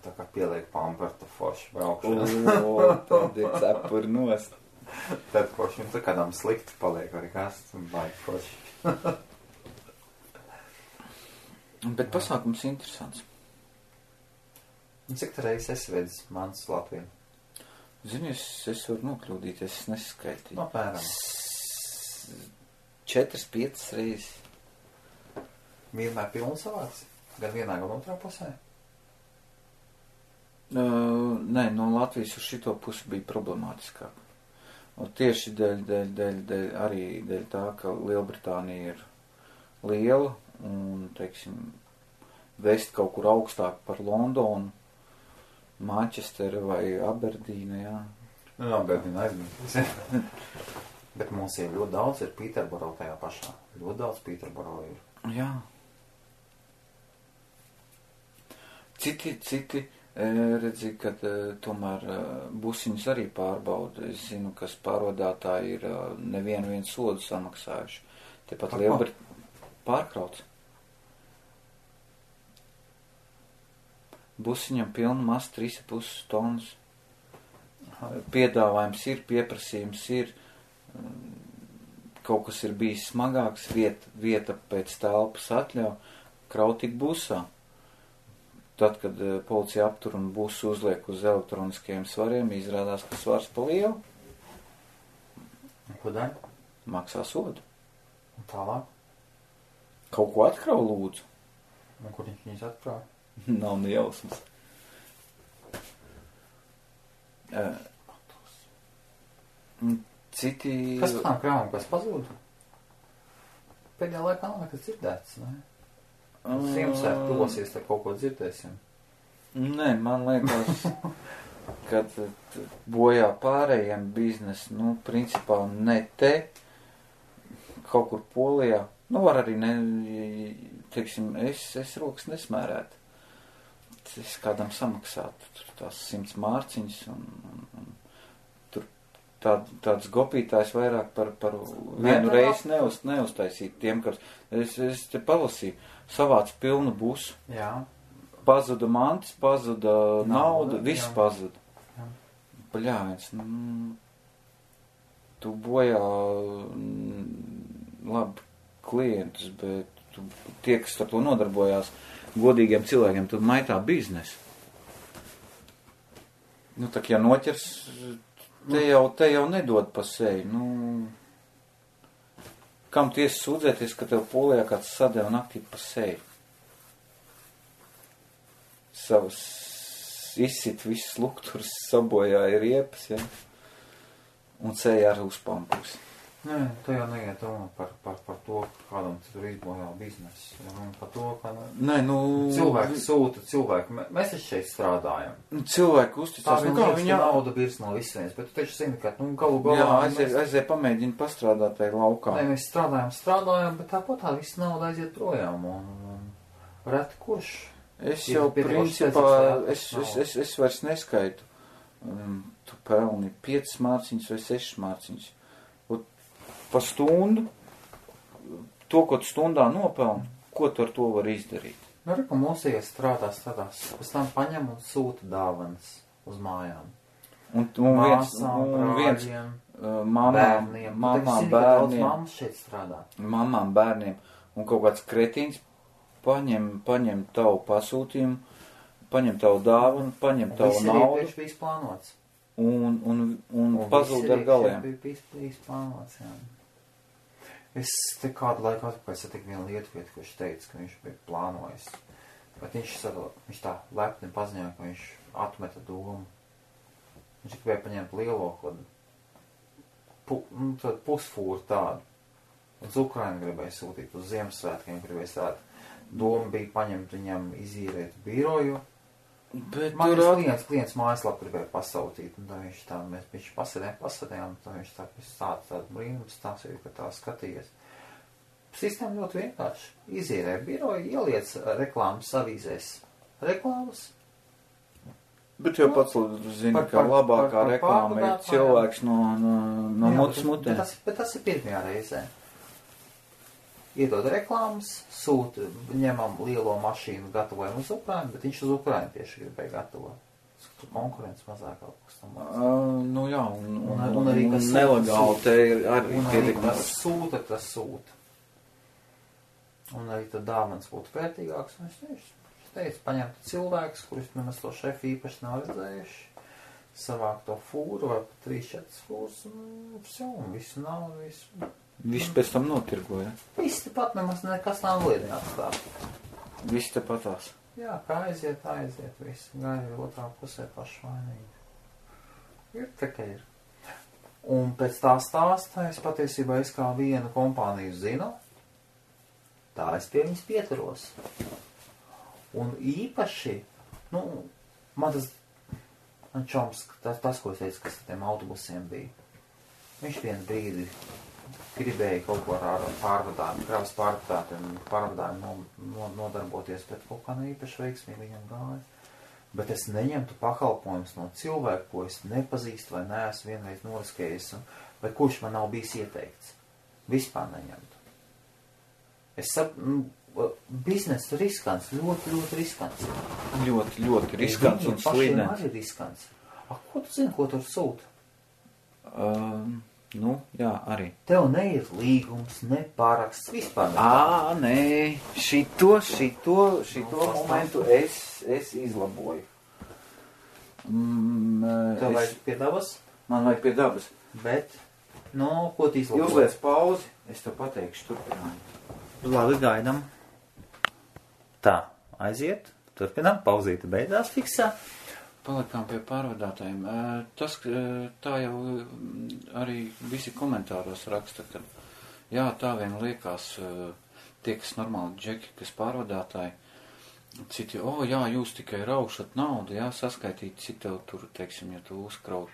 tā kā pieliek pampertu forši braukšana. Tad ir cepuri nost. Tad forši, tā kādām slikti paliek arī kas, un baigi forši. Bet pasākums interesants. Un cik tā reizes esi vedis mans Latviju? Zini, es varu nokļūdīties, es neskaitīju. Apmēram. 4-5 reizes. Vienmēr pilns savāds? Gan vienā, gan otrā pusē? Nē, no Latvijas uz šito pusi bija problemātiskāk. Un tieši dēļ tā, ka Lielbritānija ir liela un, teiksim, vest kaut kur augstāk par Londonu, Manchesteru vai Aberdīnu, jā. Aberdīnu aizmirst. Bet mums ir ļoti daudz, ir Pīterboro tajā pašā. Ļoti daudz Pīterboro ir. Jā. Citi redzi, ka tomēr busiņus arī pārbauda. Es zinu, kas pārvadātāji ir nevienu sodu samaksājuši. Tepat pārkrauts. Busiņam pilna masa 3,5 tonnas. Piedāvājums ir, pieprasījums ir. Kaut kas ir bijis smagāks, vieta pēc telpas atļauj, kraut tik busā. Tad, kad policija aptur un busu uzliek uz elektroniskajiem svariem, izrādās, ka svars pa lielu. Ko dara? Maksā sodu. Un tālāk? Kaut ko atkrau, lūdzu. Un kur viņus atkrauj? Nav ne jausmas. Citi... Kas par tām krāvām, kas pazūda? Pēdējā laikā nav nekas dzirdēts, ne? Ziemassvētku tuvosies, tad kaut ko dzirdēsim. Nē, man liekas, ka bojā pārējiem biznes, principā ne te, kaut kur Polijā, var arī teiksim, es rokas nesmērētu. Es kādam samaksātu tās 100 mārciņas un tur tāds gopītājs vairāk par vienu reizi neuztaisīt tiem, kas es te palasīju, savāc pilnu busu. Jā. Pazuda mantis, pazuda nauda, viss pazuda. Bļāviens, tu bojā labi klientus, bet tie, kas ar to nodarbojās, godīgiem cilvēkiem, tad maitā biznesu. Tak, ja noķers, te jau nedod pa seju. Kam tiesa sūdzēties, ka tev Polijā kāds sadeva naktī pa seju? Savas izsit visas lukturs, sabojāja riepas, ja? Un seja arī uzpampusi. Nē, tu jau neiet runa par to, kādam tur izbojā biznesu. Par to, ka cilvēki sūta cilvēku. Mēs taču šeit strādājam. Cilvēki uzticās. Viņa nauda birs no visienes, bet tu taču zini, ka galu galā... Jā, aiziet pamēģini pastrādāt tai laukā. Nē, mēs strādājam, bet tāpat tā visa nauda aiziet projām. Un reti kurš... Es jau principā, es vairs neskaitu. Tu pelni 5 mārciņas vai 6 mārciņas. Pa stundu, to, ko tu stundā nopelni, ko tu ar to var izdarīt? Ka mūsējies strādās, pēc tam paņem un sūta dāvanas uz mājām. Un mamām, bērniem, un kaut kāds kretīns paņem tavu pasūtījumu, paņem tavu dāvanu, paņem tavu naudu. Viss bija plānots. Un pazūd ar galiem. Viss plānots, jā. Es te kādu laiku atpakaļ satiku vienu lietuvietu, kurš teica, ka viņš bija plānojis. Bet viņš tā lepni paziņoja, ka viņš atmeta domu. Viņš gribēja paņemt lielo pusfūru tādu. Uz Ukrainu gribēja sūtīt, uz Ziemassvētkiem gribēja strādāt. Doma bija paņemt viņam izīrēt biroju Bet Man tur klients mājaslapu gribēja pasautīt, un tā viņš tā, viņš pasēdējām, tā viņš tā, stāda tādu brīnumu stāstīju, ka tā skatījies. Sistēma ļoti vienkārši. Izīrē biroju, ieliec reklāmas avīzēs. Reklāmas. Bet jau pats zini, ka labākā reklāma ir cilvēks no mutes mutē. Bet tas ir pirmajā reizē. Iedod reklāmas, sūta, ņemam lielo mašīnu, gatavojam uz Ukrainu, bet viņš uz Ukrainu tieši gribēja gatavot. Konkurence mazāk kaut kas tam mācīt. Nu jā, un arī kas nelegāli te ir arī pietiekami. Tas sūta. Un arī tad dāvans būtu vērtīgāks. Un es teicu, paņemt cilvēkus, kurus nemaz to šefu īpaši nav redzējuši, savāk to fūru vai pat 3-4 fūrus, un visu nav, visu. Viss pēc tam notirgoja. Viss tepat nemaz nekas nav liedināts tā. Viss tepatās. Jā, kā aiziet, viss. Gaida otrā pusē pašvainīgi. Ir tā, ka ir. Un pēc tā stāsta es patiesībā es kā vienu kompāniju zinu, tā es pie viņas pieturos. Un īpaši, man čoms, tas, ko es teicu, kas ar tiem autobusiem bija, viņš vienu brīdi gribēja kaut ko ar pārvadājumu, kravas pārvadājumu nodarboties, bet kaut kā neīpaši veiksmīgi viņam gāja. Bet es neņemtu pakalpojumus no cilvēku, ko es nepazīstu vai neesmu vienreiz noriskējis, vai kurš man nav bijis ieteikts. Vispār neņemtu. Es saprotu, bizness riskants, ļoti, ļoti riskants. Ļoti, ļoti riskants un slīdens. Viņiem pašiem arī riskants. Ko tu zini, ko tur sūta? Jā, arī. Tev neir līgums, ne paraksts, vispār. Nē, šito momentu es izlaboju. Tev vajag pie dabas? Man vajag pie dabas. Bet, ko tu izlaboji? Uzliec pauzi, es tev pateikšu turpinājumu. Labi, gaidam. Tā, aiziet, turpinām, pauzīte beidzās fiksā. Palikām pie pārvadātājiem. Tā jau arī visi komentāros raksta, ka jā, tā vien liekas tie, kas normāli džeki, kas pārvadātāji, citi, jā, jūs tikai raušat naudu, jā, saskaitīt, cik tev tur, teiksim, ja tu uzkraut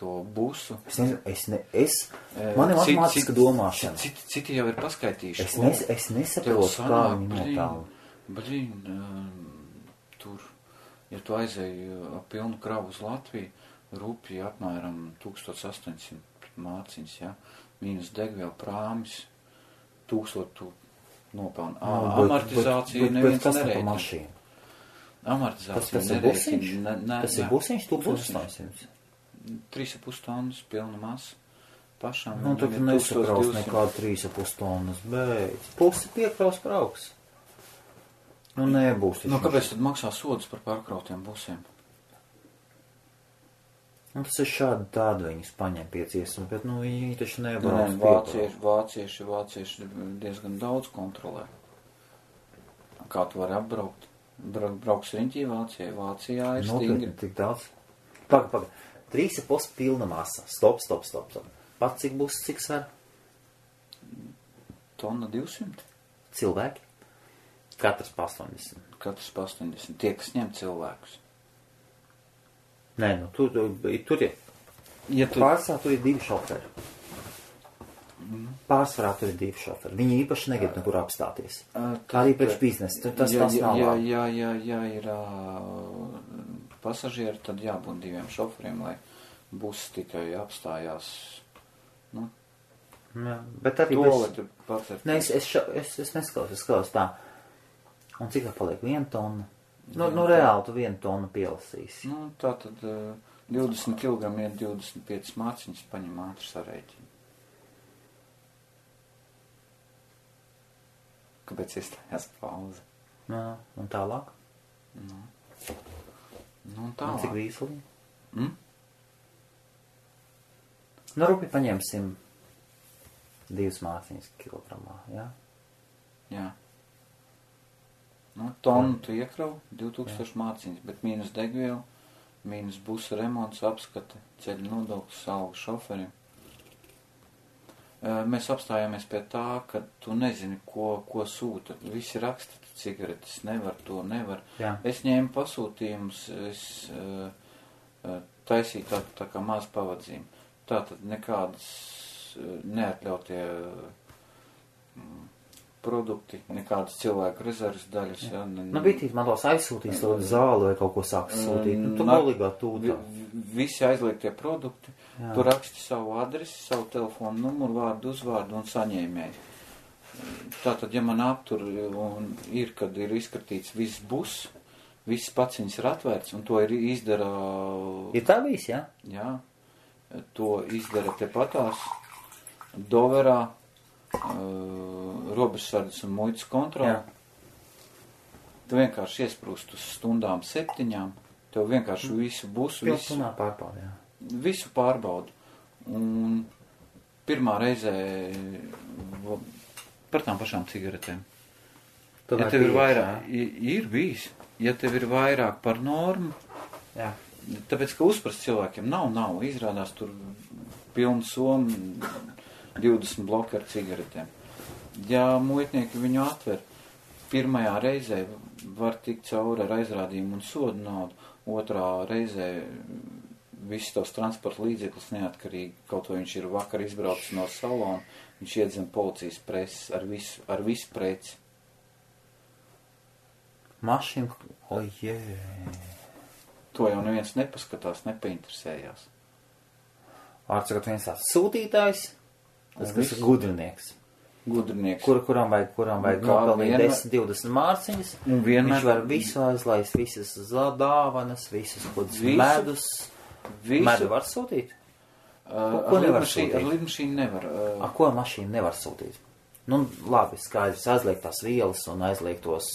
to busu. Man ir matemātiska domāšana. Citi jau ir paskaitījuši. Es nesaprotu, kā viņi notālu. Tur. Ja tu aizēji pilnu kravu uz Latviju, rupji apmēram 1800 māciņas, ja? Mīnus degviela prāmis, 1000 tu nopelni. Amortizācija neviens nereikina. Amortizācija nereikina. Tas ir busiņš, 1800. 3,5 tonnas pilna masa. Pašam. Tad nesakraus nekādu 3,5 tonnas, bet pusi piekraus krauks. Nebūs. Kāpēc tad maksā sodus par pārkrautiem busiem? Tas ir šādi tādi viņus paņem pieciesumi, bet viņi taču nebrauc. Vācieši diezgan daudz kontrolē. Kā tu vari apbraukt? Brauks riņķī Vācijā ir stingri. Tik daudz. Paga. 3,5 pilna masa. Stop. Pat cik būs, cik sver? Tonna 200. Cilvēki? Katrs pa 80. Tie, kas ņem cilvēkus. Nē, tur ir. Pārsvarā tur ir 2 šoferi. Pārsvarā tur ir 2 šoferi. Viņi īpaši negrib nekur apstāties. Arī pēc biznesa. Tas nav labi. Ja ir pasažieri, tad jābūt 2 šoferiem, lai bus tikai apstājās. Bet arī es neskalos tā. Un cik tā paliek? 1 tonna? Reāli tu 1 tonu pielasīsi. Tā tad 20 kg ir 25 māciņas, paņem ātri sarēķini. Kāpēc iestājās pauze? Un tālāk? Un tālāk. Cik vīsli? Rupi paņemsim 2 māciņas kilogramā, jā? Jā. Tonu tu iekrau, 2000 māciņas, bet mīnus degviela, mīnus busa remonts, apskate, ceļu nodoklis, alga šoferim. mēs apstājāmies pie tā, ka tu nezini, ko sūta. Visi raksta cigaretes, nevar. Jā. Es ņēmu pasūtījumus, es taisīju tā kā maz pavadzījumu. Tātad nekādas neatļautie produkti, nekādas cilvēku rezerves daļas. Ja, Bitīt man tos aizsūtīs to zāli vai kaut ko sāks sūtīt. Tu galīgā tūtā. Visi aizliegtie produkti, tu raksti savu adresi, savu telefonu numuru, vārdu, uzvārdu un saņēmēju. Tātad, ja man aptur un ir, kad ir izskatīts viss bus, viss paciņas ir atvērts un to ir izdara... Ir tā bijis, jā? Jā, to izdara tepatās Doverā, robežsardzes un muitas kontroli. Tu vienkārši iesprūst uz stundām 7, tev vienkārši visu busu, visu pārbaudu. Un pirmā reizē par tām pašām cigaretēm. Ja tev ir vairāk, ir bijis, ja tev ir vairāk par normu, tāpēc, ka uzprast cilvēkiem nav, izrādās tur pilnu somu 20 bloki ar cigaretēm. Ja muitnieki viņu atver, pirmajā reizē var tikt cauri ar aizrādījumu un sodu naudu, otrā reizē viss tavs transporta līdzeklis neatkarīgi, kaut vai viņš ir vakar izbraucis no salona, viņš iedzem policijas preses ar visu preci. Mašīna, To jau neviens nepaskatās, nepainteresējās. Vārdsakot viens tāds sūtītājs, tas kas ir gudrinieks. Kuram vajag nopelnīt 10-20 mārciņas, viņš var visu aizlaist, visas dāvanas, visas medus. Medu var sūtīt? Ko nevar sūtīt? Ar lidmašīnu nevar. Ko mašīnu nevar sūtīt? Nu, labi, skaidrs, aizliegt tās vielas un aizliegt tos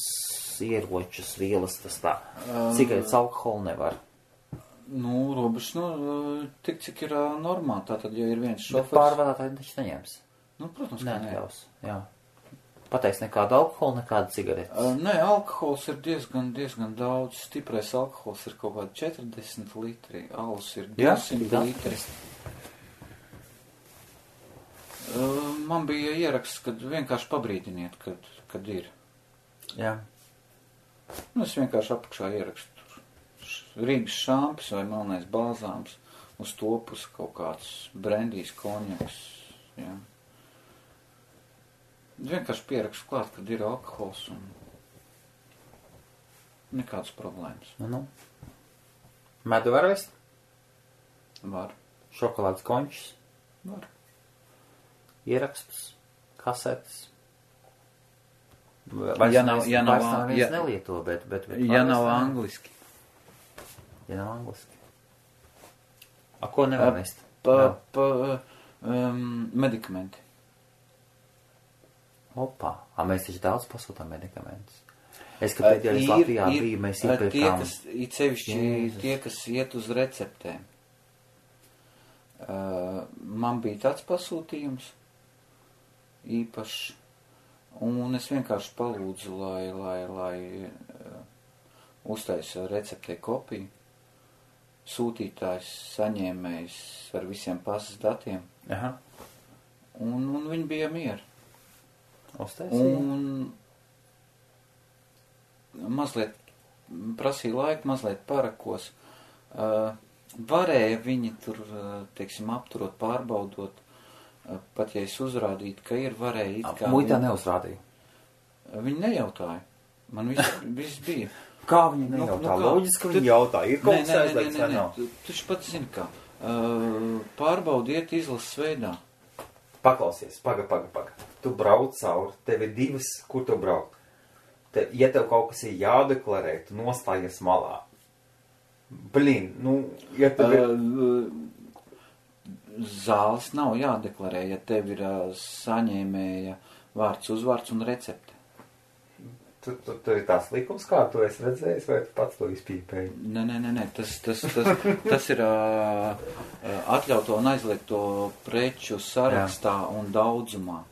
ieročus, vielas, tas tā. Cigaretes alkoholu nevar. Nu, robežs, tik cik ir normāli, tātad, ja ir viens šofers. Bet pārvadātāji taču neņems. Nu, protams, ka neatļaus, jā. Pateiks nekādu alkoholu, nekādu cigaretes. Nē, alkohols ir diezgan daudz. Stiprais alkohols ir kaut kādi 40 litri, alus ir 200 litri. Man bija ieraksts, kad vienkārši pabrīdiniet, kad ir. Jā. Es vienkārši apakšā ierakstu Rīgas šampis vai melnais balzāms, uz to pusi kaut kāds brendijs, konjaks, jā. Vienkārši pierakstu klāt, kad ir alkohols un nekādas problēmas. Medu var vest? Var. Šokolādes končus? Var. Ierakstus, kasetes? Ja nav nelieto, bet ja nav angliski. Ja nav angliski. A ko nevar vest? Medikamenti. Opā. Mēs taču daudz pasūtām medikamentus. Es, ka pēdējais Latvijā bija, mēs iepirkām. Tie, kas iet uz receptēm. Man bija tāds pasūtījums īpašs. Un es vienkārši palūdzu, lai uztaisa receptē kopiju. Sūtītājs, saņēmējs ar visiem pasas datiem. Aha. Un viņi bija mieri. Uztaisīja? Un mazliet prasīja laiku, mazliet parakos. Varēja viņi tur, teiksim, apturot, pārbaudot. Pat ja es uzrādītu, ka ir varēja it kā... Muitā neuzrādīja? Viņi nejautāja. Man viss bija. Kā viņi nejautā? Loģiski, ka viņi jautā. Ir kaut kas aizliegts vai nav? Tu pat zini kā. Pārbaudiet izlases veidā. Paklausies, paga. Tu brauc cauri, tev ir divas, kur tu brauc. Ja tev kaut kas ir jādeklarē, tu nostājies malā. Ja tev ir... Zāles nav jādeklarē, ja tev ir saņēmēja vārds, uzvārds un recepte. Tur ir tās likums, kā tu esi redzējis, vai tu pats to izpīpēji? Nē. Tas ir atļauto un aizliegto preču sarakstā un daudzumā.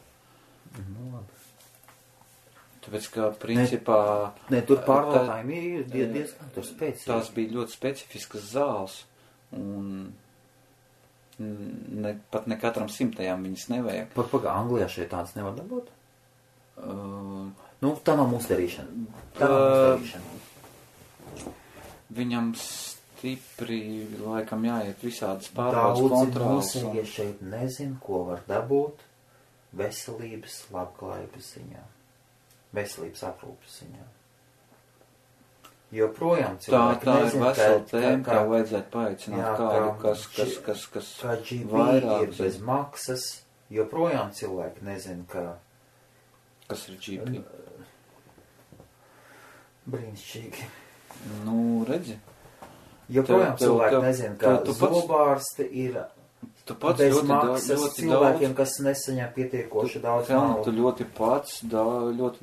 Tāpēc, ka principā... Tur pārvaldājumi ir diezgan tur spēcīgi. Tās bija ļoti specifiskas zāles un... Pat ne katram 100 viņas nevajag. Paga, Anglijā šeit tāds nevar dabūt? Nu, tā nav mūsu darīšana. Viņam stipri, laikam, jāiet visādas pārbaudas kontrolas. Daudzi mūsīgi šeit nezin, ko var dabūt veselības labklājības ziņā. Veselības aprūpes ziņā. Joprojām cilvēki tā nezin, ir vesela tēma, kā vajadzētu paaicināt kādu, kas kā GP vairāk ir bez maksas. Joprojām cilvēki nezin, ka... Kas ir GP? Brīnišķīgi. Nu, redzi. Joprojām cilvēki nezin, ka zobārsti ir bez maksas cilvēkiem, kas nesaņem pietiekoši daudz naudu. Tu ļoti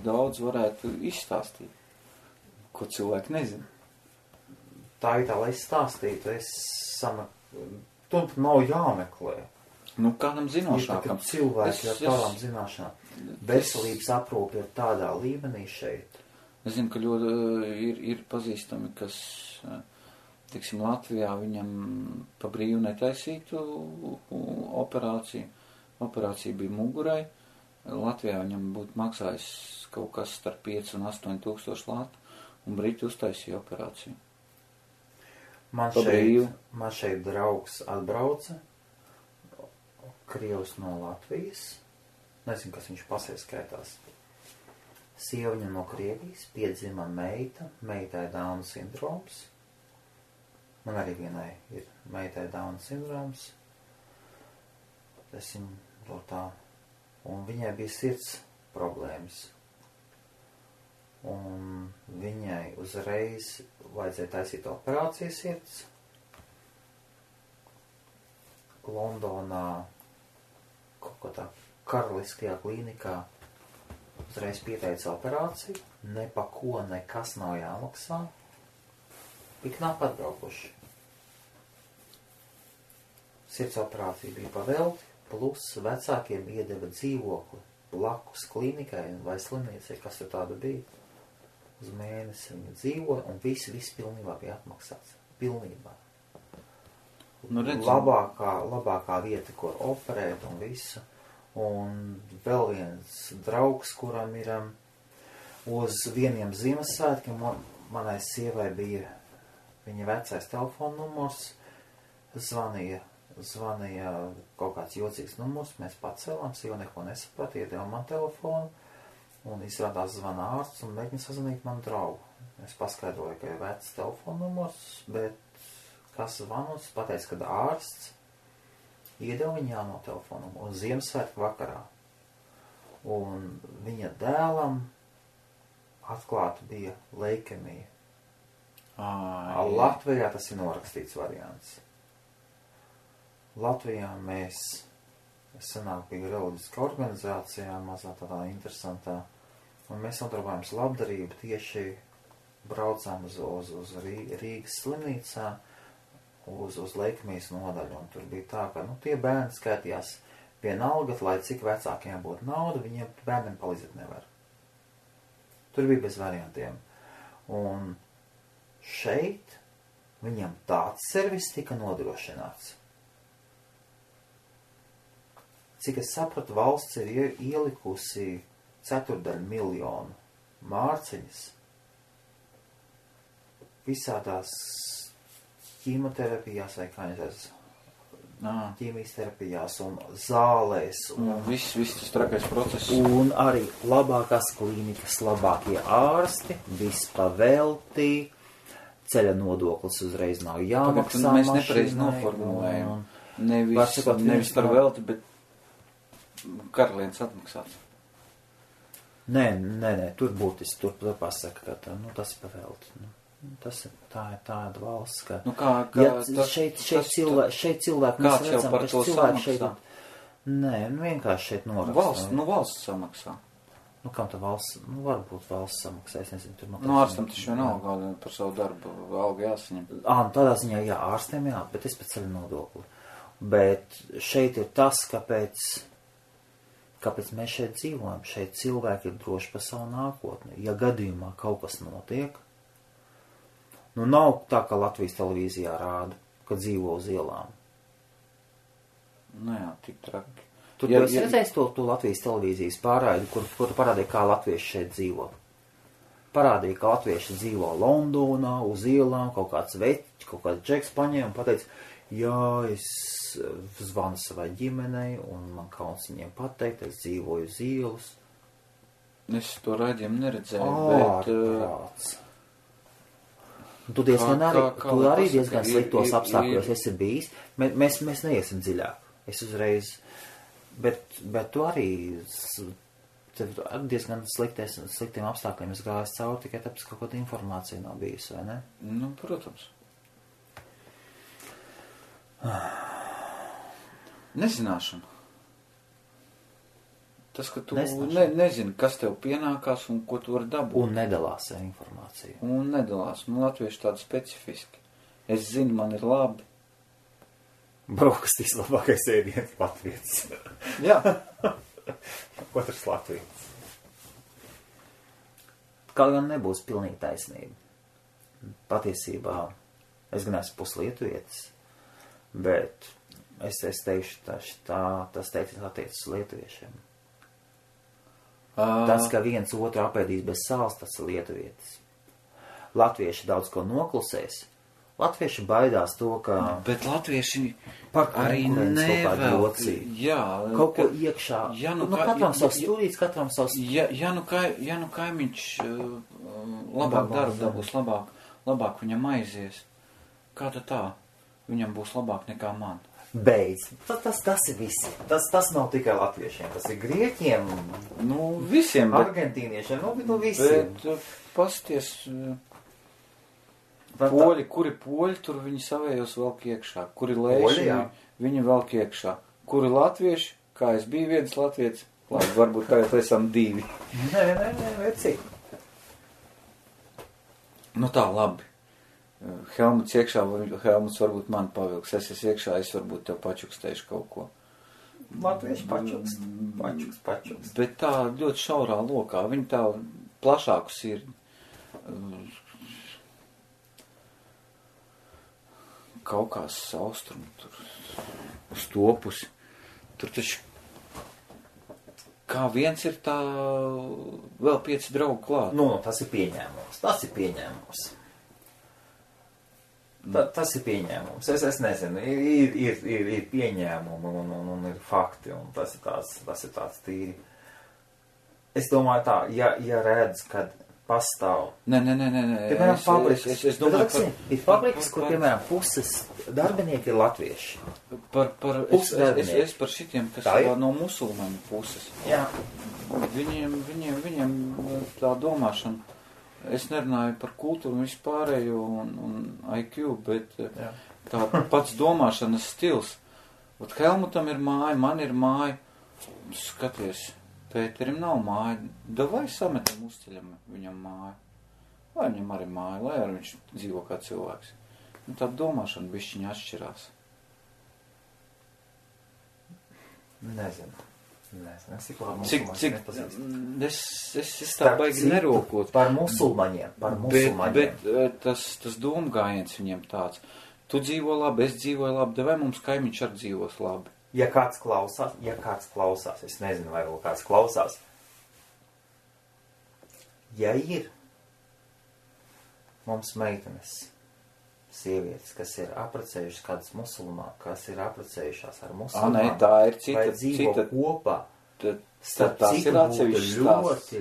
daudz varētu izstāstīt, ko cilvēki nezin. Tā ir tā, lai es stāstītu, tu nav jāmeklē. Nu, kādam zinošākam. Cilvēki ar tādām zināšanām. Veselības aprūpe ir tādā līmenī šeit. Es zinu, ka ļoti ir pazīstami, kas, tiksim, Latvijā viņam pa brīvu netaisītu operāciju. Operācija bija mugurai. Latvijā viņam būtu maksājis kaut kas starp 5 un 8 tūkstoši latu, un Briti uztaisīja operāciju. Man šeit draugs atbrauca, Krievs no Latvijas. Nezinu, kas viņš pasē skaitās. Sieva viņam no Krievijas, piedzima meitai Dauna sindroms. Man arī vienai ir meitai Dauna sindroms. Es viņu to tā. Un viņai bija sirds problēmas. Un viņai uzreiz vajadzēja taisīt operāciju sirds. Londonā, kaut kā tā karaliskajā klīnikā, uzreiz pieteica operāciju, ne pa ko nekas nav jāmaksā, tik nav atbraukuši. Sirds operācija bija pavelti, plus vecākiem iedeva dzīvokli blakus klīnikai vai slimniecei, kas tur tāda bija. Uz mēnesi viņa dzīvoja, un viss pilnībā bija atmaksāts. Pilnībā. Nu, labākā vieta, kur operēt un visu. Un vēl viens draugs, kuram ir uz vieniem Ziemassvētkiem, manai sievai bija viņa vecais telefona numurs, zvanīja kaut kāds jocīgs numurs, mēs pacēlām, sieva neko nesaprata, iedeva man telefonu, un izrādās zvana ārsts un mēģina sazvanīt manu draugu. Es paskaidroju, ka ir vecs telefona numurs, bet kas zvanos, pateica, kad ārsts iedeva viņa jauno telefonu un Ziemassvētku vakarā. Un viņa dēlam atklāta bija leikemija. Latvijā tas ir norakstīts variants. Latvijā mēs senāk bija reliģiska organizācijā, mazā tādā interesantā, un mēs nodarbojamies labdarību, tieši braucām uz Rīgas slimnīcā, uz leikemijas nodaļu, un tur bija tā, ka tie bērni skaitījās vienalga, lai cik vecākiem būtu nauda, viņiem bērniem palīdzēt nevar. Tur bija bez variantiem. Un šeit viņam tāds servis tika nodrošināts. Cik es sapratu, valsts ir ielikusi 250 000 mārciņas visādās ķīmoterapijās vai ķīmijas terapijās un zālēs. Viss tas trakais process. Un arī labākās klīnikas, labākie ārsti, viss paveltī, ceļa nodoklis uzreiz nav jāmaksā. Mēs nepareiz noformulējam. Nevis par velti, bet karalienes atmaksāts. Nē, tur būtiski, tur pasaka, ka tas ir pavelti. Tas ir tāda valsts, ka... šeit cilvēki, mēs redzam, ka cilvēki šeit... Nē, vienkārši šeit noraksta. Valsts samaksā. Kam tā valsts? Varbūt valsts samaksā, es nezinu, tur... Ārstam taču vienalga par savu darbu algu jāsaņem. Tādā ziņā, jā, ārstiem jā, bet es pēc ceļu nodokli. Bet šeit ir tas, kāpēc mēs šeit dzīvojam. Šeit cilvēki ir droši par savu nākotni. Ja gadījumā kaut kas notiek, nav tā, ka Latvijas televīzijā rāda, ka dzīvo uz ielām. Nu jā, tik traki. Tu esi redzējis to Latvijas televīzijas pārraidi, kur parādīja, kā latvieši šeit dzīvo. Parādīja, ka latvieši dzīvo Londonā, uz ielām, kaut kāds džeks paņēma un pateica, jā, es zvanu savai ģimenei un man kauns viņiem pateikt, es dzīvoju uz ielas. Es to raidījumu neredzēju, bet... Tu arī diezgan sliktos apstākļos esi bijis. Mēs neiesim dziļāk. Es uzreiz... Bet tu arī diezgan sliktiem apstākļiem es gāju cauri, tikai tāpēc kaut kāda informācija nav bijusi, vai ne? Nu, protams. Nezināšana. Tas, ka tu nezini, kas tev pienākās un ko tu vari dabūt. Un nedalās ar informāciju. Un nedalās. Nu, latvieši tādi specifiski. Es zinu, man ir labi. Brokastīs labākais ēdiens latvietis. Jā. Otrs latvietis. Kaut gan nebūs pilnīgi taisnība. Patiesībā es gan esmu puslietuvietis, bet es teikšu, tas teikts attiecas uz lietuviešiem. Tas, ka viens otru apēdīs bez sāls, tas ir lietuvietis. Latvieši daudz ko noklusēs. Latvieši baidās to, ka... Bet latvieši arī nevēl. Jā. Kaut ko iekšā. Ja katram savs stūrīts, katram savs... Ja nu kaimiņš labāk darbu dabūs, labāk viņam aizies. Kā tā? Viņam būs labāk nekā man. Beidz. Tas ir visi. Tas nav tikai latviešiem. Tas ir grieķiem. Nu, visiem. Argentīniešiem. Nu, visiem. Bet pasties... Poļi, kuri poļi, tur viņi savējos velk iekšā. Kuri lēši, viņi velk iekšā. Kuri latvieši, kā es biju viens latvietis, labi, varbūt tagad esam divi. Nē, cik. Nu tā, labi. Helmuts iekšā, Helmuts varbūt man pavilks. Es esmu iekšā, es varbūt tev pačukstēšu kaut ko. Latvieši pačukst. Bet tā ļoti šaurā lokā. Viņi tā plašāku sirdi. Kaukās austrumu, tur uz topusi. Tur taču kā viens ir tā vēl 5 draugu klāt. Nu, tas ir pieņēmums. Tas ir pieņēmums. Es nezinu, ir pieņēmumi un ir fakti, un tas ir tāds tīri. Es domāju tā, ja redz, kad pastāv. Nē. Piemēram, fabrikas. Ir fabrikas, kur, piemēram, puses darbinieki ir latvieši. Es par šitiem, kas ir no musulmaņu puses. Jā. Viņiem tā domāšana. Es nerunāju par kultūru vispārējo un IQ, bet tā pats domāšanas stils. Ot Helmutam ir māja, man ir māja. Skaties. Pēterim nav māja, davai sametam uzceļam viņam māju. Lai viņam arī māja, lai arī viņš dzīvo kā cilvēks. Un tā domāšana bišķiņa atšķirās. Nezinu. Es tā baigi nerokot. Par musulmaņiem. Bet tas domgājiens viņiem tāds. Tu dzīvo labi, es dzīvoju labi, davai mums kaimiņš arī dzīvos labi. Ja kāds klausās, es nezinu, vai vēl kāds klausās. Ja ir mums meitenes, sievietes, kas ir apprecējušas kādas musulmāni, kas ir apprecējušās ar musulmāni, tā ir cita, vai dzīvo kopā, tas ir atsevišķs stāsts.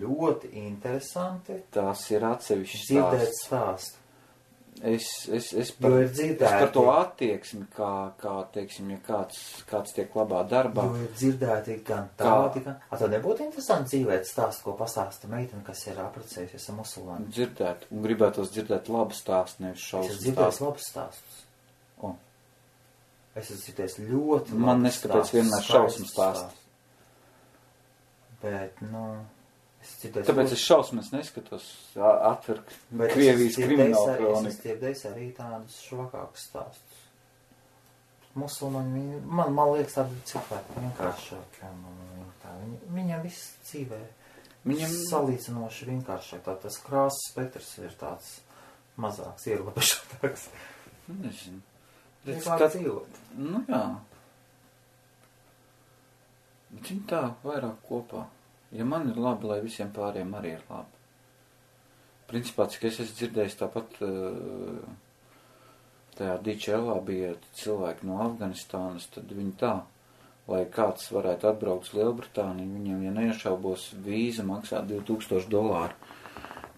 Ļoti interesanti. Tas ir atsevišķs stāsts. Dzirdēt stāstu. Es par to attieksmi, kā teiksim, ja kāds tiek labā darbā. Jo ir dzirdēti gan tādi, gan... Tad nebūtu interesanti dzīvēt stāstu, ko pastāsta meitene, kas ir apprecējusies ar musulmāni? Dzirdēt, un gribētos dzirdēt labu stāstu, nevis šausmu stāstu. Es dzirdēju labus stāstus. Es esmu dzirdējis ļoti labus Man neskapēc vienmēr šausmu stāstu. Bet, Tāpēc es šausmas neskatos atver Krievijas kriminālu kroniku. Es dzirdējis arī tādus švakākus stāstus. Musulmaņi, man liekas, tādi cilvēki vienkāršāki. Viņam viss dzīvē salīdzinoši vienkāršāk. Tas krāsas spektrs ir tāds mazāks, ierobežotāks. Nezinu. Vienkārši dzīvot. Nu jā. Bet viņi tā vairāk kopā. Ja man ir labi, lai visiem pāriem arī ir labi. Principā, cik es esmu dzirdējis, tāpat tajā DHL bija cilvēki no Afganistānas, tad viņi tā, lai kāds varētu atbraukt uz Lielbritāniju, viņiem, ja neiešaubos, vīza maksā $2000,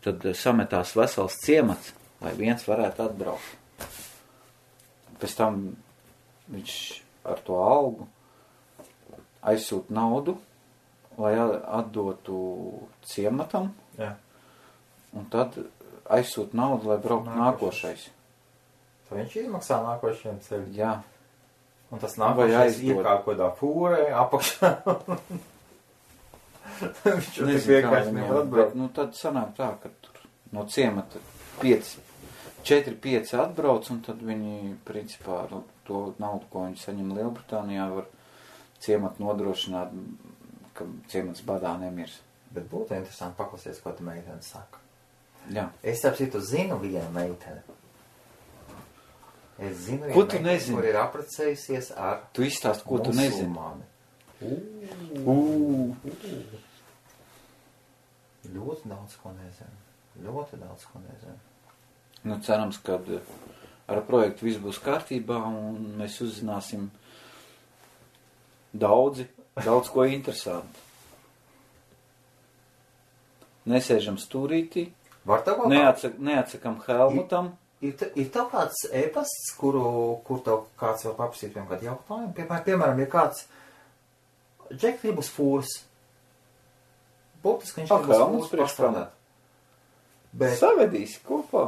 tad sametās vesels ciemats, lai viens varētu atbraukt. Pēc tam viņš ar to algu aizsūt naudu, lai atdotu ciematam, Jā. un tad aizsūt naudu, lai brauktu nākošais. Tad viņš izmaksā nākošajiem ceļu. Jā. Un tas nākošais ir kā kodā fūrē, apakšā. Viņš jau tik vienkārši nevar atbraukt. Nu, tad sanāk tā, ka tur no ciemata 4-5 atbrauc, un tad viņi, principā, to naudu, ko viņi saņem Lielbritānijā, var ciematu nodrošināt, ka ciemats badā nemirs. Bet būtu interesanti paklausīties, ko tu meitene saka. Jā. Es tāpēc citu zinu vienu meiteni. Es zinu Ko vienu tu meiteni, nezini? kur ir apprecējusies ar Tu izstāst, ko tu nezini. musulmani. Ļoti daudz ko nezinu. Ļoti daudz ko nezinu. Nu, cerams, ka ar projektu viss būs kārtībā, un mēs uzzināsim daudz ko interesantu. Nesēžam stūrītī, Var tev kaut kā? neatsakam Helmutam. Ir tev kāds e-pasts, kur tev kāds var paprasīt vienam kādu jautājumu? Piemēram, ja kāds Džek grib uz fūras. Būtiski viņš grib uz Helmuts fūras priekš kam? pastrādāt. Bet Savedīsi kopā.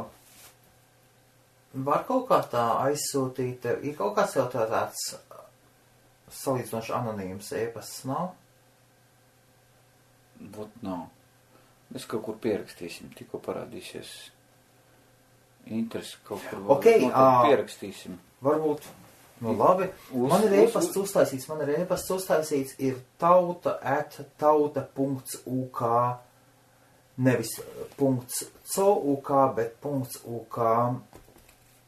var kaut kā tā aizsūtīt, ir kaut kāds jau tāds salīdzinoši anonīms e-pasts, nav? Būt nav. Mēs kaut kur pierakstīsim, tikko parādīsies interesi kaut kur. Ok, pierakstīsim. Varbūt, nu labi. Man ir e-pasts uztaisīts, ir tauta@tauta.uk, nevis .co.uk, bet .uk.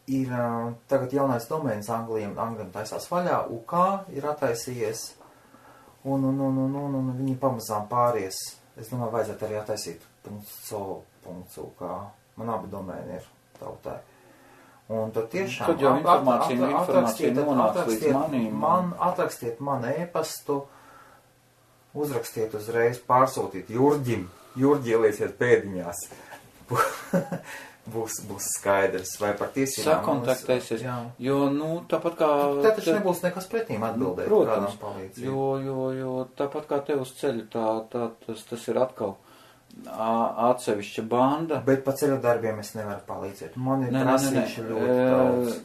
Ir tagad jaunais domēns Anglijam taisās vaļā, UK ir attaisījies, un viņi pamazām pāries. Es domāju, vajadzētu arī attaisīt .co.uk. Man abi domēni ir tautai. Un tad tiešām Tad jau informācija nonāks līdz manīm. Atrakstiet man e-pastu, uzrakstiet uzreiz, pārsūtīt Jurģim. Jurģi ielieciet pēdiņās. Būs skaidrs, vai par tiesībām. Sakontaktēsies, jo, tāpat kā... Te taču nebūs nekas pretīm atbildēt, protams, kādam palīdzību. jo tāpat kā tev uz ceļu, tas ir atkal atsevišķa banda. Bet pa ceļu darbiem es nevaru palīdzēt. Man ir prasījuši ļoti daudz.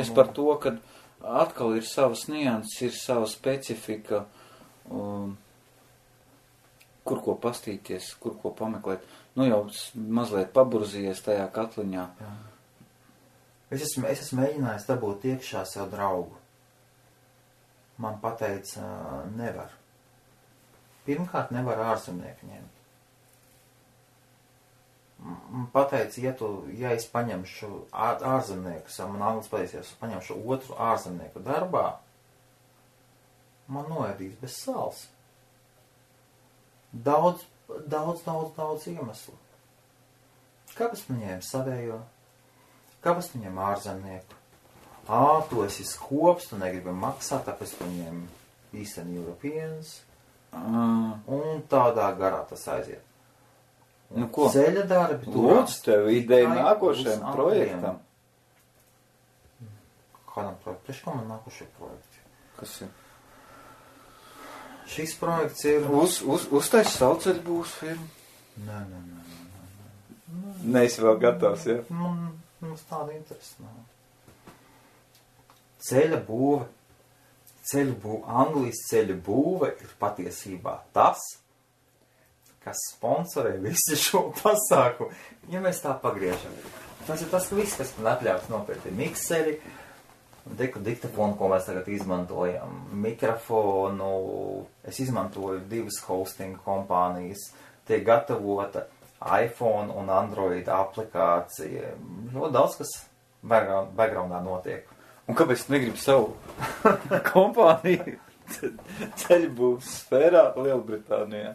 Es par to, ka atkal ir savas nianses, ir sava specifika, kur ko pastīties, kur ko pameklēt. Nu jau mazliet paburzījies tajā katliņā. Jā. Es esmu mēģinājis dabūt iekšā sev draugu. Man pateica, nevar. Pirmkārt, nevar ārzemnieku ņemt. Man pateica, ja es paņemšu ārzemnieku, man anglis pateicies, paņemšu otru ārzemnieku darbā, man noēdīs bez sāls. Daudz iemeslu. Kāpēc man ņēma savējo? Kāpēc man ņēma ārzemnieku? Tu esi skops, tu negribi maksāt, tāpēc tu ņēma Eastern Europeans. Un tādā garā tas aiziet. Nu ko? Ceļa darbi. Lūdzu, tev ideja nākošajam projektam. Kādam projektam? Priekš kā man nākošie projekti? Kas ir? Šis projekts ir... Uztais sauceļu būs firma? Nē. Neesi vēl gatavs, ja? Mums tāda interesa nav. Ceļa būve. Anglijas ceļa būve ir patiesībā tas, kas sponsorē visu šo pasākumu. Ja mēs tā pagriežam. Tas ir tas, ka viss, kas man atļauts nopirkt, ir mikseri, diktafonu, ko mēs tagad izmantojam, mikrofonu. Es izmantoju 2 hosting kompānijas. Tiek gatavota iPhone un Android aplikācija. Ļoti daudz, kas backgroundā notiek. Un kāpēc tu negribi savu kompāniju ceļbūvs sfērā Lielbritānijā.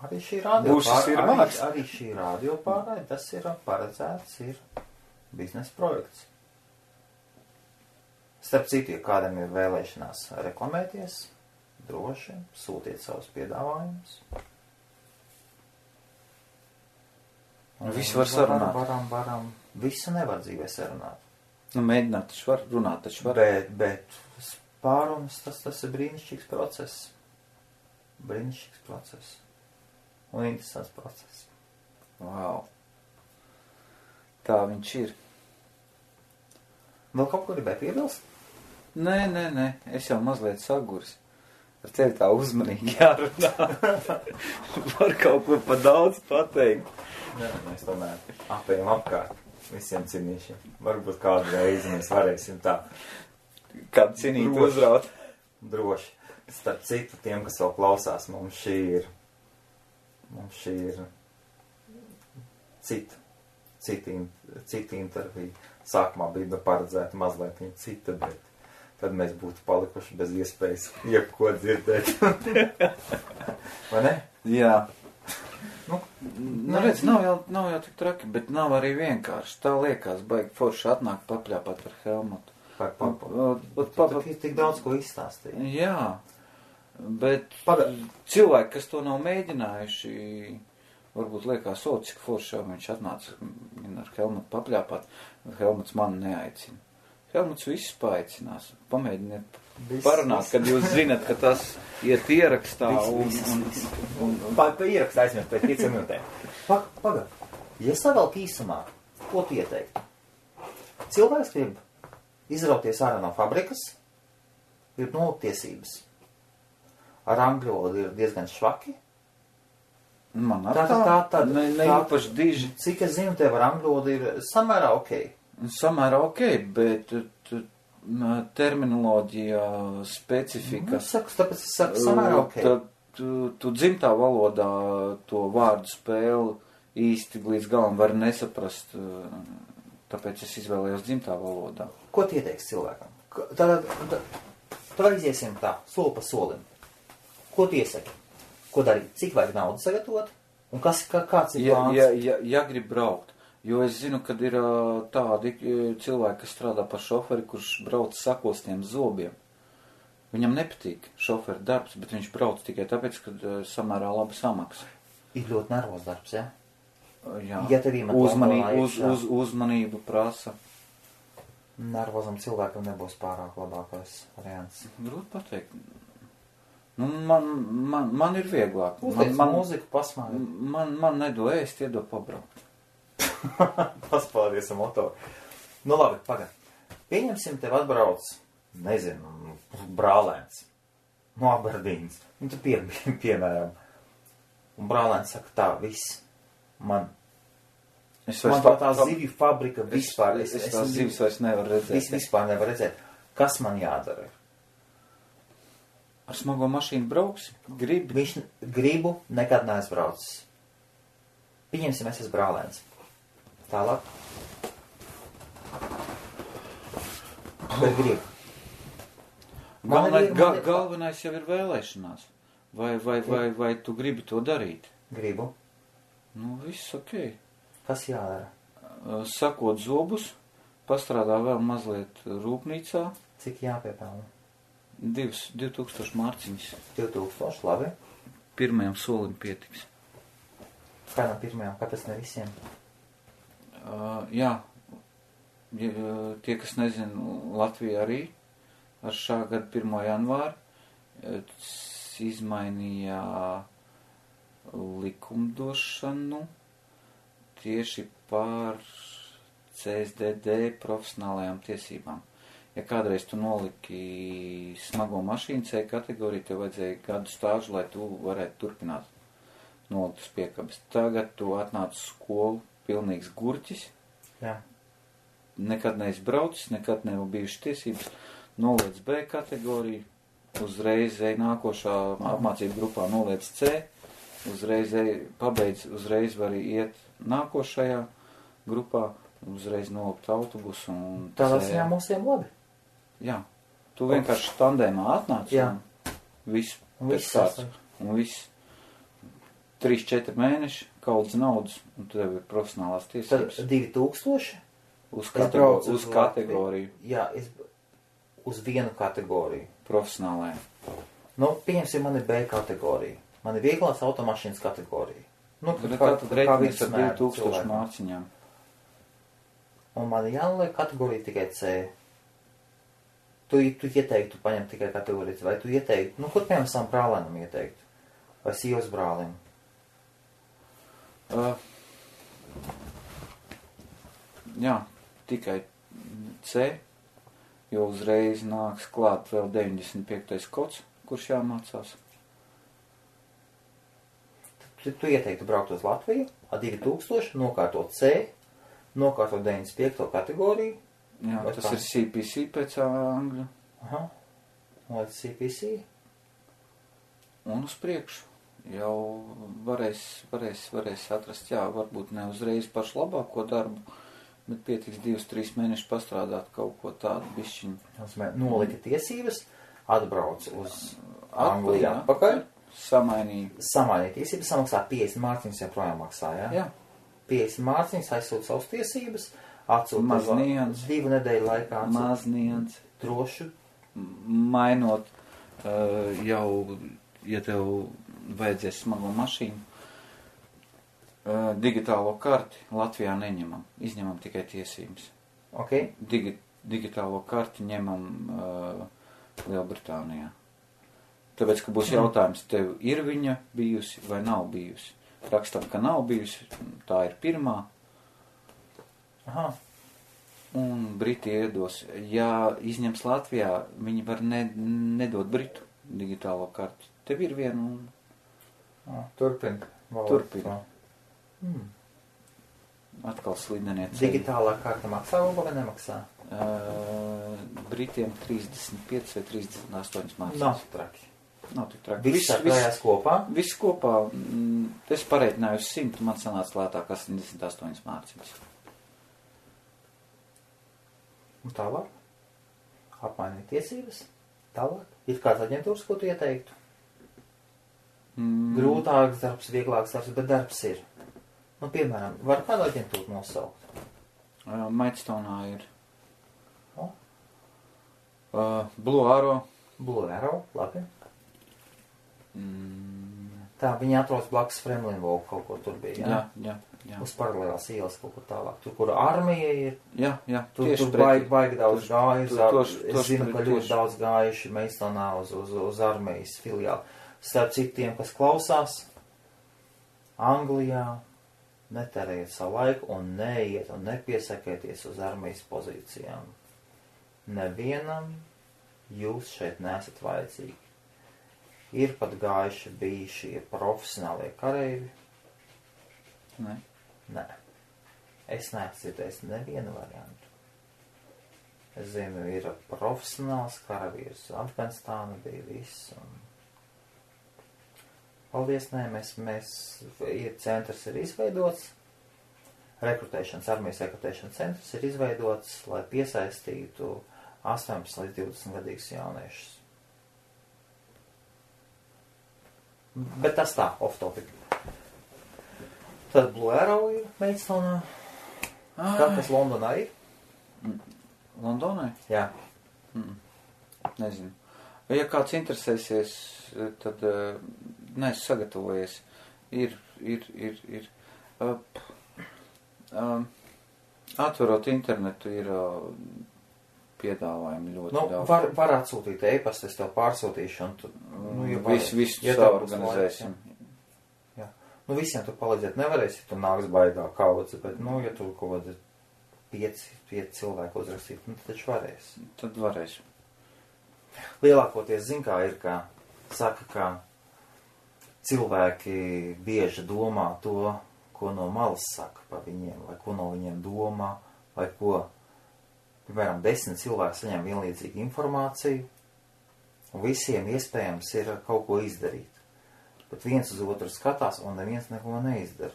Arī šī radio Būšas ir māksla. arī šī radio pārraide, tas ir paredzēts, ir biznesa projekts. Starp citu, ja kādam ir vēlēšanās reklamēties, droši sūtiet savus piedāvājumus. Visu var sarunāt. Varam. Visu nevar dzīvē sarunāt. Nu, mēģināt taču var, runāt taču var. Bet pārunas, tas ir brīnišķīgs process. Brīnišķīgs process. Un interesants process. Wow. Tā viņš ir. Vēl kaut ko gribēju piebilst? Nē, es jau mazliet saguris. Ar tevi tā uzmanīgi jārunā. Var kaut ko pa daudz pateikt. Nē, mēs tomēr apējam apkārt visiem cinīšiem. Varbūt kādu reizi mēs varēsim tā Kādu cinīt uzraut. droši. Starp citu, tiem, kas vēl klausās, mums šī ir cita intervija. Sākumā bija paredzēta mazliet viņa cita, bet tad mēs būtu palikuši bez iespējas jebko dzirdēt. Vai ne? Jā. Nu, Redz, nav jau tik traki, bet nav arī vienkārši. Tā liekas, baigi forši atnāk papļāpāt ar Helmutu. Tur ir tik daudz ko izstāstīt. Jā, bet cilvēki, kas to nav mēģinājuši, varbūt liekas, cik forši jau viņš atnāca ar Helmutu papļāpāt. Helmuts mani neaicina. Helmuts visus paaicinās. Pamēģiniet parunāt, kad jūs zinat, ka tas iet ierakstā Ierakstā aizmirst pēc 5 minūtēm. Pagad, ja savelk īsumā, ko tu ieteiktu? Cilvēks grib izrauties ārā no fabrikas, grib nolūkt tiesības. Ar angļu valodu ir diezgan švaki. Man ar tā īpaši diži. Cik es zinu, tev ar angļu valodu ir samērā ok. Samērā ok, bet terminoloģija, specifika. Tāpēc es saku samērā ok. Tu dzimtā valodā to vārdu spēli īsti līdz galam var nesaprast, tāpēc es izvēlējos dzimtā valodā. Ko tu ieteiksi cilvēkam? Tad iziesim tā, soli pa solim. Ko tu iesaki? Ko darīt? Cik vajag naudu sagatavot? Un kāds ir plāns? Ja grib braukt. Jo es zinu, kad ir tādi cilvēki, kas strādā par šoferi, kurš brauc sakostiem zobiem. Viņam nepatīk šoferi darbs, bet viņš brauc tikai tāpēc, ka samērā labi samaksa. Ir ļoti nervos darbs, ja? Jā. Ja tev uzmanību prasa. Nervozam cilvēkam nebūs pārāk labākais variants. Grūti pateikt. Nu, man ir vieglāk. Man mūziku pasmāja. Man nedo ēst, iedo pabraukt. Paspādies ar motoru. Nu labi, pagad. Pieņemsim tev atbrauc, nezinu, brālēns no Aberdīnas. Un tu piemēram. Un brālēns saka tā, viss. Man tā zivju fabrika vispār. Es tās zivis vairs nevaru redzēt. Vispār nevar redzēt. Kas man jādara? Ar smago mašīnu brauks? Gribu, nekad neaizbraucis. Pieņemsim, es esmu brālēns. Tālāk. Bet gribu. Galvenais jau ir vēlēšanās. Vai tu gribi to darīt? Gribu. Nu, viss ok. Kas jādara? Sakot zobus, pastrādā vēl mazliet rūpnīcā. Cik jāpiepelna? 2000 mārciņas. 2000, labi. Pirmajam solim pietiks. Kādam pirmajam, kāpēc ne visiem? Jā, tie, kas nezinu, Latvija arī ar šā gada 1. janvāru izmainīja likumdošanu tieši par CSDD profesionālajām tiesībām. Ja kādreiz tu noliki smago mašīnu C kategoriju, tev vajadzēja gadu stāžu, lai tu varētu turpināt nolikt uz piekabes. Tagad tu atnāc uz skolu pilnīgs gurķis. Jā. Nekad neizbraucis, nekad nav bijušas tiesības. Noliec B kategoriju, uzreiz nākošā apmācību grupā noliec C, uzreiz pabeidz, uzreiz var iet nākošajā grupā, uzreiz nolikt autobusu. Tādā ziņā mums ir labi. Jā, Tu vienkārši tandēmā atnāc. Jā. Un viss Un pēc viss kāds. sasniedz. Un viss 3-4 mēneši, kaudzes naudas, un tev ir profesionālās Tad tiesības. 2000. Uz Es braucu uz uz kategoriju. Jā, uz vienu kategoriju. Profesionālajā. Nu, pieņemsim, man ir B kategorija. Man ir vieglās automašīnas kategorija. Nu, Tad reiķinies ar vidusmēra 2000 cilvēkam. mārciņām. Un man ir jānoliek kategorija tikai C. Tu ieteiktu paņemt tikai kategoriju C, vai tu ieteiktu, nu, kur piemēram savam brālēnam ieteiktu? Vai sievas brālim? Jā, tikai C, jo uzreiz nāks klāt vēl 95. kods, kurš jāmācās. Tu ieteiktu braukt uz Latviju, ar 2000, nokārtot C, nokārtot 95. kategoriju. Jā, Vai tas tā? ir CPC pēc angļu. Aha. Vai CPC? Un uz priekšu. Jau varēs atrast, jā, varbūt ne uzreiz pašu labāko darbu, bet pietiks 2-3 mēnešus pastrādāt kaut ko tādu bišķiņu. Nolika tiesības, atbrauc uz Angliju atpakaļ, samainīja tiesības, samaksā 50 mārciņas, joprojām maksā, jā? Jā. 50 mārciņas, aizsūt savas tiesības, atsūt Maz nians. 2 nedēļu laikā atsūt Mazniens. drošu. Mainot jau, ja tev vajadzēs smago mašīnu, digitālo karti Latvijā neņemam, izņemam tikai tiesības. Ok? Digitālo karti ņemam Lielbritānijā. Tāpēc, ka būs jautājums, tev ir viņa bijusi vai nav bijusi. Rakstam, ka nav bijusi, tā ir pirmā. Aha. Un Briti iedos. Ja izņems Latvijā, viņi var nedot Britu digitālo karti. Tev ir viena un... Turpin. Atkal slidenie ceļi. Digitālā karta maksā vai nemaksā? Britiem 35 vai 38 mārciņas. Nav traki. Nav tik traki. Viss sakrājās kopā? Viss kopā. Es pareiķināju uz 100, man sanāca lētāk 88 mārciņas. Un tālāk? Apmainīt tiesības? Tālāk? Ir kāds aģentūras, ko tu ieteiktu? Grūtāks darbs, vieglāks darbs, bet darbs ir. Nu, piemēram, var kādu aģentūru nosaukt? Maidstone'ā ir. O? Blue Arrow. Blue Arrow, labi. Tā, viņi atrodas blakus Fremlin Walk, kaut kur tur bija, jā? Jā. Uz paralēlās ielas kaut kur tālāk. Tur, kur armija ir. Jā. Tur baigi daudz gājuši. Es zinu, ka ļoti daudz gājuši Maidstone'ā uz armijas filiāli. Starp citiem, kas klausās, Anglijā netērējiet savu laiku un neiet un nepiesakieties uz armijas pozīcijām. Nevienam jūs šeit nesat vajadzīgi. Ir pat gājuši bijušie profesionālie kareivi. Ne. Nē. Es neesmu dzirdējis nevienu variantu. Es zinu, ir profesionāls karavīrs. Afganistāna bija viss. Paldies, nē, centrs ir izveidots. Armijas rekrutēšanas centrs ir izveidots, lai piesaistītu 18 līdz 20 gadīgus jauniešus. Bet tas tā, off topic. Tad Blue Arrow ir Maidstone'ā. Kā tas Londonā ir? Londonai? Jā. Nezinu. Ja kāds interesēsies, tad neesmu sagatavojies. Ir. Atverot internetu ir piedāvājumi ļoti daudz. Var atsūtīt e-pastu, es tev pārsūtīšu. Un tu, visu saorganizēsim. Jā. Visiem tu palīdzēt nevarēsi, tu nāks baigā kaudze, bet, ja tu kaut kādi 5 cilvēku uzrakstīt, tad taču varēsi. Tad varēsim. Lielākoties, kā ir, saka, ka cilvēki bieži domā to, ko no malas saka par viņiem, vai ko no viņiem domā, vai ko, piemēram, 10 cilvēki saņem vienlīdzīgu informāciju, un visiem iespējams ir kaut ko izdarīt. Bet viens uz otru skatās un neviens neko neizdara.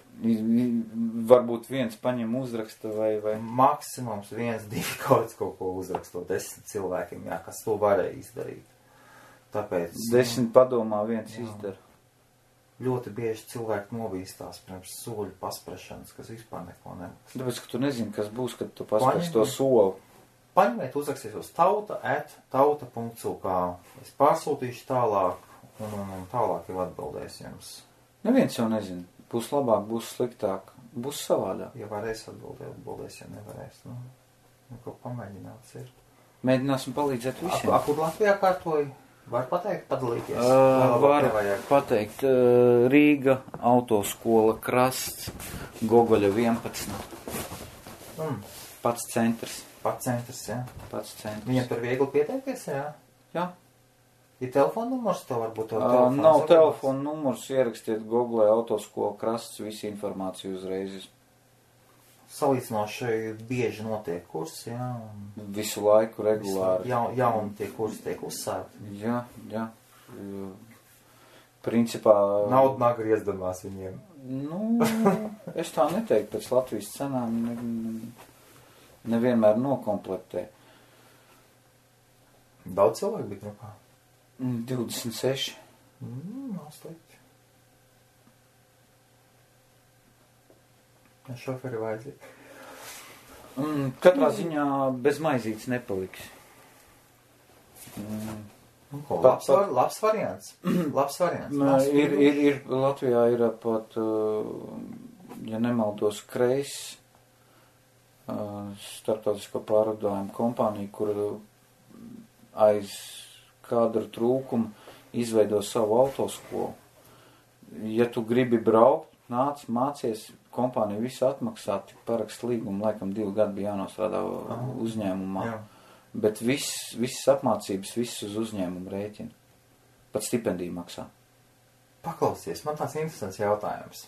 Varbūt viens paņem uzraksta vai... Maksimums 1-2 kaut ko uzrakstot 10 cilvēkiem, jā, kas to varēja izdarīt. Tāpēc... 10 padomā viens izdara. Ļoti bieži cilvēki novīstās pirms soļu pasprašanas, kas vispār neko nemaksā. Tāpēc, ka tu nezini, kas būs, kad tu paspraši to soli. Paņemiet, uzrakstīt uz tauta.uk. Es pārsūtīšu tālāk un tālāk jau atbildēs jums. Neviens jau nezina. Būs labāk, būs sliktāk, būs savādāk. Ja varēs atbildēs, ja nevarēs. Nu ko pamēģināts ir. Mēģināsim palīdzēt visiem. Kur Latvijā kārtoji? Var pateikt, padalīties? Var pateikt. Rīga, autoskola, Krasts, Gogoļa 11. Pats centrs. Pats centrs, jā. Pats centrs. Viņam tur viegli pieteikties, jā? Jā. Ir telefona numurs, tev varbūt tev telefons? Nav telefona numurs, ierakstiet Google autoskola, Krasts, visu informāciju uzreiz. Salīdzinoši bieži notiek kursi, jā. Visu laiku regulāri. Jauni tie kursi tiek uzsākti. Jā. Principā... Nauda nāk griezdamās viņiem. Es tā neteiktu, pēc Latvijas cenām nevienmēr nokomplektē. Daudz cilvēku bija grupā? 26. Nav slikti. Šoferi vajadzīgi. Katrā ziņā bez maizītes nepaliks. Labs variants. Labs variants. Ir Latvijā ir pat, ja nemaldos, Kreis starptautisko pārvadājumu kompāniju, kur aiz kadru trūkumu izveido savu autoskolu. Ja tu gribi braukt, nāc, mācies, kompānija visu atmaksā, tik parakst līgumu, laikam 2 gadi bija jānostrādā uzņēmumā. Jā. Bet visas apmācības, viss uz uzņēmumu rēķina. Pat stipendiju maksā. Paklausies, man tāds interesants jautājums.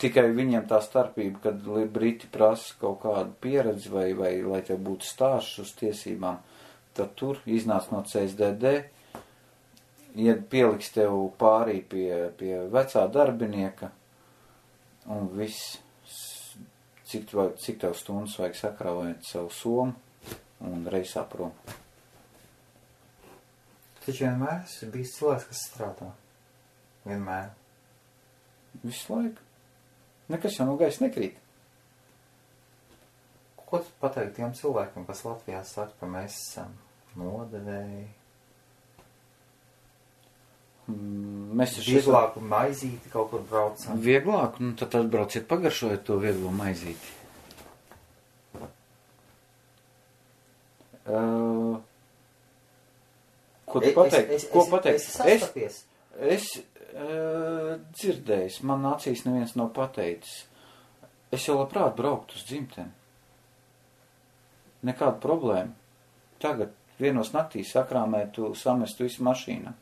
Tikai viņiem tā starpība, kad Briti prasa kaut kādu pieredzi vai lai tev būtu stāsts uz tiesībām, tad tur iznāc no CSDD, ja pieliks tev pārī pie vecā darbinieka, un viss, cik tev stundas vajag sakrāvēt savu somu un reisā prom. Taču vienmēr esi bijis cilvēks, kas strādā. Vienmēr. Visu laiku. Nekas jau no gaisa nekrīt. Ko tu pateikt tiem cilvēkiem, kas Latvijā saka, ka mēs esam nodevēji? Mēs vieglāku maizīti kaut kur braucam. Vieglāku? Tad atbrauciet pagaršojiet to vieglo maizīti. Ko tu pateikt? Ko pateikt? Es dzirdējis, man acīs neviens nav pateicis. Es jau labprāt brauktu uz dzimteni. Nekāda problēma. Tagad vienos naktīs sakrāmētu, samestu visu mašīnā.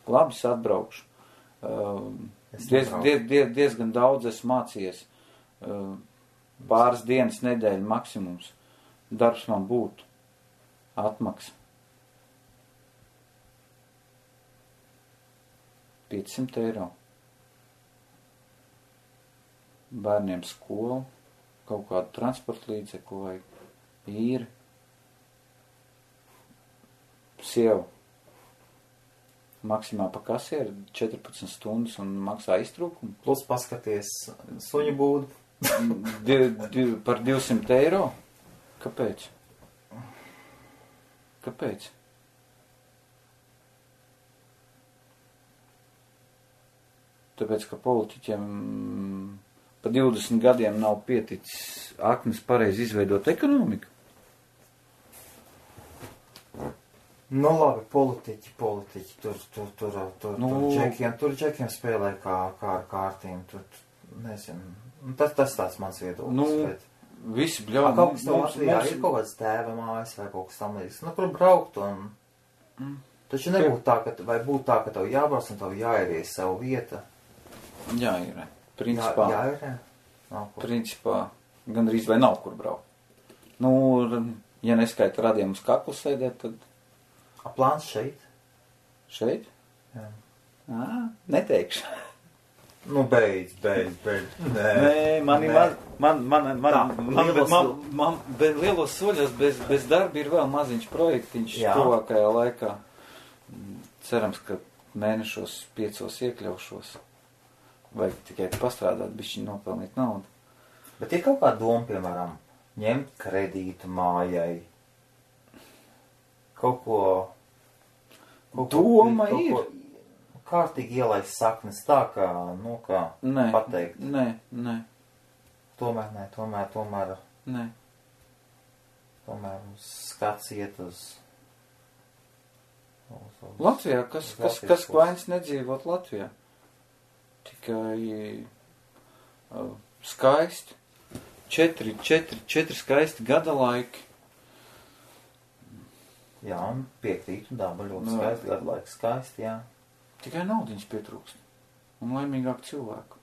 Labi, es atbraukšu. Diezgan daudz esmu mācījies. Pāris dienas, nedēļa maksimums. Darbs man būtu. Atmaksa. 500 eiro. Bērniem skolu, kaut kādu transporta līdzekli vai īri. Sieva. Maksimā pa kasieri 14 stundas un maksā iztrūkumu. Plus paskaties suņu būdu. Par 200 eiro? Kāpēc? Kāpēc? Tāpēc, ka politiķiem pa 20 gadiem nav pieticis akmes pareizi izveidot ekonomiku. Nu labi, politiķi, tur džekiem spēlē kā ar kārtīm, tur, nezinu, tas tāds mans viedoklis. Visi bļauj. Kaut kas tev Latvijā ir kaut kāds tēva mājas vai kaut kas tam līdz, kur braukt un, taču nebūtu tā, ka tev jābrauc un tev jāieries savu vieta. Jāierē. Principā. Jāierē? Principā, gandrīz vai nav kur braukt. Ja neskaita radiem uz kaklu sēdēt, tad... Plāns šeit? Šeit? Jā. Neteikšu. Nu, beidz. Nē, man lielos soļos bez darba ir vēl maziņš projektiņš tuvākajā laikā. Cerams, ka mēnešos 5 iekļaušos. Vajag tikai pastrādāt, bišķiņ nopelnīt naudu. Bet ir kaut kā doma, piemēram, ņemt kredītu mājai. Kaut ko doma ir. Kārtīgi ielaist saknes tā, kā, pateikt. Nē. Tomēr skats iet uz Latvijā, kas vainas nedzīvot Latvijā? Tikai skaisti. 4 skaisti gada laiki. Jā, un piekrītu daba ļoti skaisti, gada laiki skaisti, jā. Tikai naudiņas pietrūkst. Un laimīgāk cilvēku.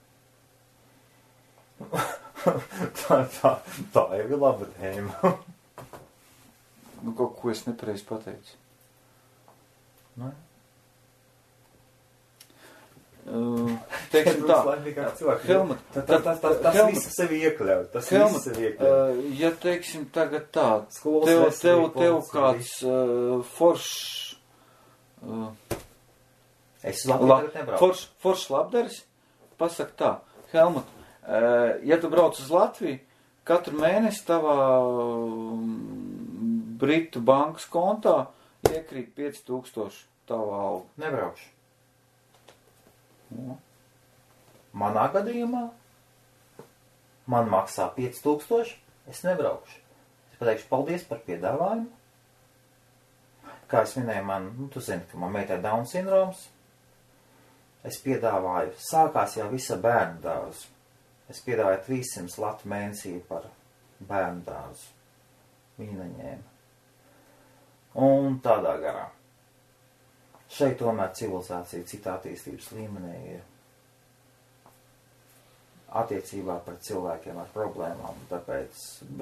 tā jau ir laba tēma. Kaut ko es nepareizi pateicu. Teiksim tā. Helmut, tas viss sevi iekļaut. Ja teiksim tagad tā, tev kāds foršs foršs labdaris, pasaka tā, Helmut, ja tu brauc uz Latviju, katru mēnesi tavā Britu bankas kontā iekrīt 5000 tavā alga. Nebraukšu. Manā gadījumā man maksā 5000, es nebraukšu. Es pateikšu paldies par piedāvājumu. Kā es minēju, tu zini, ka man meitai Down sindroms. Es piedāvāju, sākās jau visa bērnu dārzu. Es piedāvāju 300 latu mēnesī par bērnu dārzu. Viņa neņēma. Un tādā garā. Šeit tomēr civilizācija cita attīstības līmenī ir attiecībā pret cilvēkiem ar problēmām. Tāpēc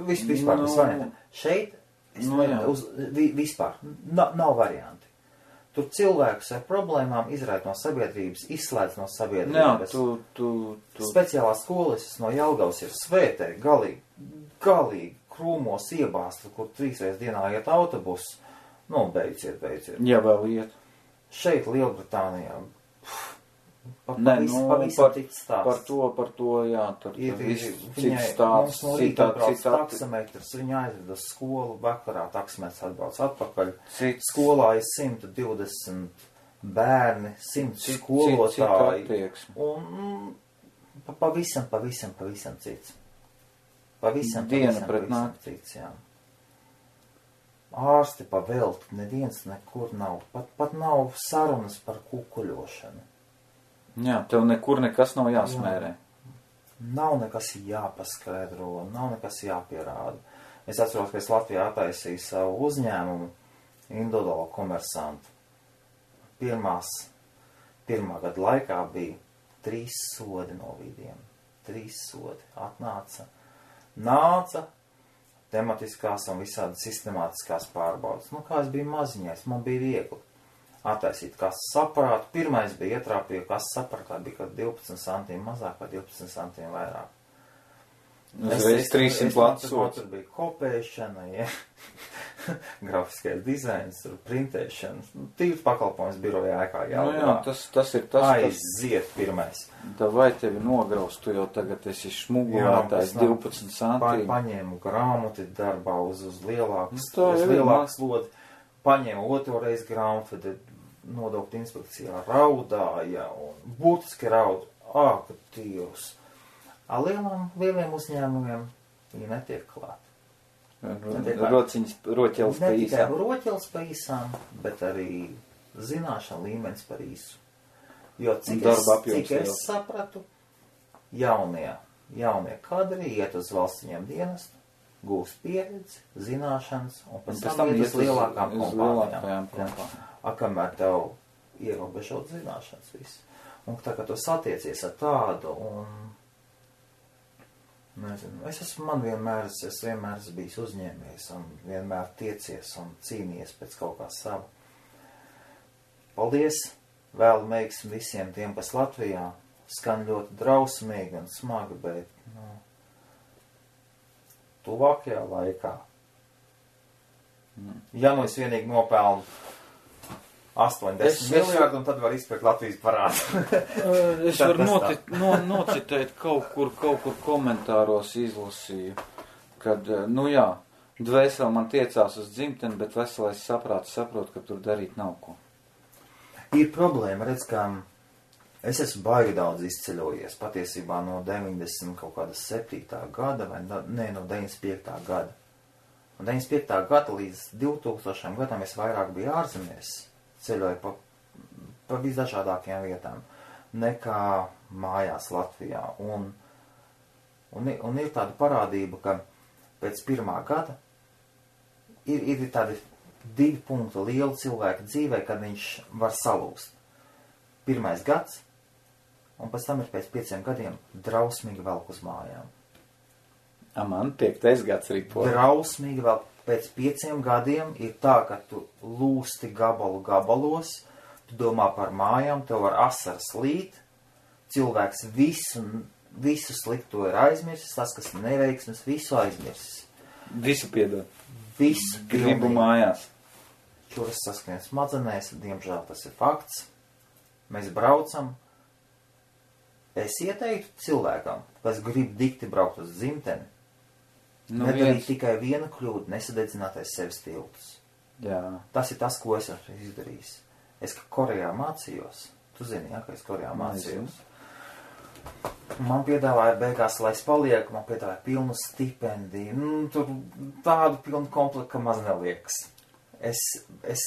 vispār tas varianti. Šeit vispār nav varianti. Tur cilvēkus ar problēmām izraid no sabiedrības, izslēdz no sabiedrības. Speciālā skolas no Jelgavas ir svētē, galīgi krūmos iebāsta, kur 3 reizes dienā iet autobus. Beidziet. Jā, vēl iet. Šeit Lielbritānijā. Pavisam cits stāsts. Par to, jā, tur cits stāsts. Mums no rīta brauc taksametrs, viņa aizved uz skolu, vakarā taksametrs atbrauc atpakaļ. Skolā ir 120 bērni, 100 skolotāji. Un pavisam cits. Pavisam cits, jā. Ārsti pa velti, neviens nekur nav. Pat nav sarunas par kukuļošanu. Jā, tev nekur nekas nav jāsmērē. Nav nekas jāpaskaidro, nav nekas jāpierāda. Es atceros, ka es Latvijā attaisīju savu uzņēmumu, individuālo komersantu. Pirmā gada laikā bija 3 sodi no vidiem. 3 sodi. Nāca tematiskās un visādi sistemātiskās pārbaudas. Kā es biju maziņais, man bija viegli attaisīt kases aparātu. Pirmais bija ietrāpīja kases aparātā, bija kaut 12 centiem mazāk vai 12 centiem vairāk. Es 300 lats sots. Tur bija kopēšana, grafiskais dizains, printēšana. Tīvs pakalpojums birojā ēkā jālgā. Tas ir tas, aiziet pirmais. Vai tevi nograus, tu jau tagad esi šmugulētājs 12 centiem. Paņēmu grāmatu darbā uz lielāku slodi. Paņēmu otro reizi grāmatu, tad nodokļu inspekcijā raudāja un būtiski raud. Ka Dievs! Lieliem uzņēmumiem viņi netiek klāt. Roķels pa īsām. Ne tikai roķels pa īsām, bet arī zināšana līmenis par īsu. Jo cik es sapratu, jaunie kadri iet uz valstiņiem dienestu, gūst pieredzi, zināšanas, un pēc tam iet uz lielākām kompānijām. Kamēr tev ierobežot zināšanas visu. Un tā, ka tu satiecies ar tādu, un nezinu, es vienmēr esmu bijis uzņēmējs un vienmēr tiecies un cīnījies pēc kaut kā sava. Paldies Vēl veiksmi visiem tiem, kas Latvijā skan ļoti drausmīgi un smagi, bet, tuvākajā laikā. Ja nu es vienīgi nopelnu 80 miljārdu, un tad var izpirkt Latvijas parādu. Es varu nocitēt kaut kur komentāros izlasīju, kad, dvēseli man tiecās uz dzimteni, bet veselais saprāts saprot, ka tur darīt nav ko. Ir problēma, redz, ka es esmu baigi daudz izceļojies, patiesībā no 90 kaut kāda 7. gada, vai no 95. gada. No 95. gada līdz 2000. gadam es vairāk biju ārzemēs, ceļoju pa visdažādākajām vietām, nekā mājās Latvijā. Un ir tāda parādība, ka pēc 1. gada ir tādi 2 punkti liela cilvēka dzīvē, kad viņš var salūst. 1. gads, un pēc tam ir pēc 5 gadiem drausmīgi velk uz mājām. Man 5. gads ripo. Drausmīgi vēl pēc 5 gadiem ir tā, ka tu lūsti gabalos, tu domā par mājām, tev var asaras līt, cilvēks visu slikto ir aizmirsis, tas, kas neveiksmes, visu aizmirsis. Visu piedod. Visu gribu mājās. Čuras saskrien smadzenēs, diemžēl tas ir fakts. Mēs braucam. Es ieteiktu cilvēkam, kas grib dikti braukt uz dzimteni, nedarīt tikai vienu kļūdu, nesadedzinātais sevis tiltus. Jā. Tas ir tas, ko es esmu izdarījis. Es Korejā mācījos. Tu zini, ka es Korejā mācījos. Man piedāvāja beigās, lai es palieku, man piedāvāja pilnu stipendiju. Tur tādu pilnu komplektu, ka maz neliekas. Es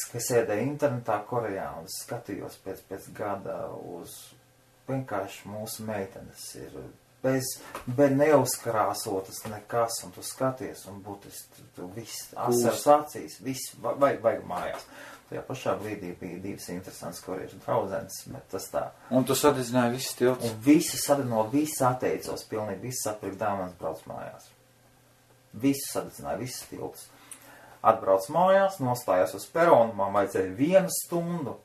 sēdēju internetā Korejā un skatījos pēc gada uz vienkārši mūsu meitenes ir bez neuzkrāsotas nekas, un tu skaties, un būtiski tu viss asaras acīs, viss vajag mājās. Tajā pašā brīdī bija 2 interesants koriešu draudzenes, bet tas tā. Un tu sadedzināji visus tiltus? Un visu sadedzināju, visu atteicos, pilnīgi visu atpirkt dāvanas, brauc mājās. Visu sadedzināju, visus tiltus. Atbrauc mājās, nostājās uz peronu, man vajadzēja 1 stundu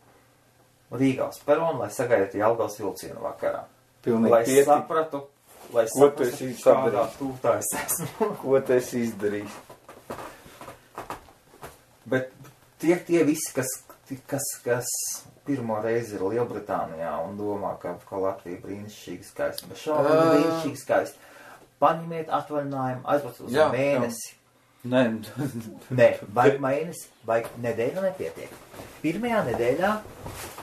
Rīgā uz peronu, lai sagaidītu Jelgavas vilcienu vakarā. Pilnīgi sapratu, kādā tūtā es esmu. Ko tu esi izdarījis? Bet tie visi, kas pirmo reizi ir Lielbritānijā un domā, ka Latvija brīnišķīgi skaista, bet šādi brīnišķīgi skaista. Paņemiet atvaļinājumu, aizbrauc uz mēnesi. Nē, vajag mēnesi, vajag nedēļu nepietiek. 1. nedēļā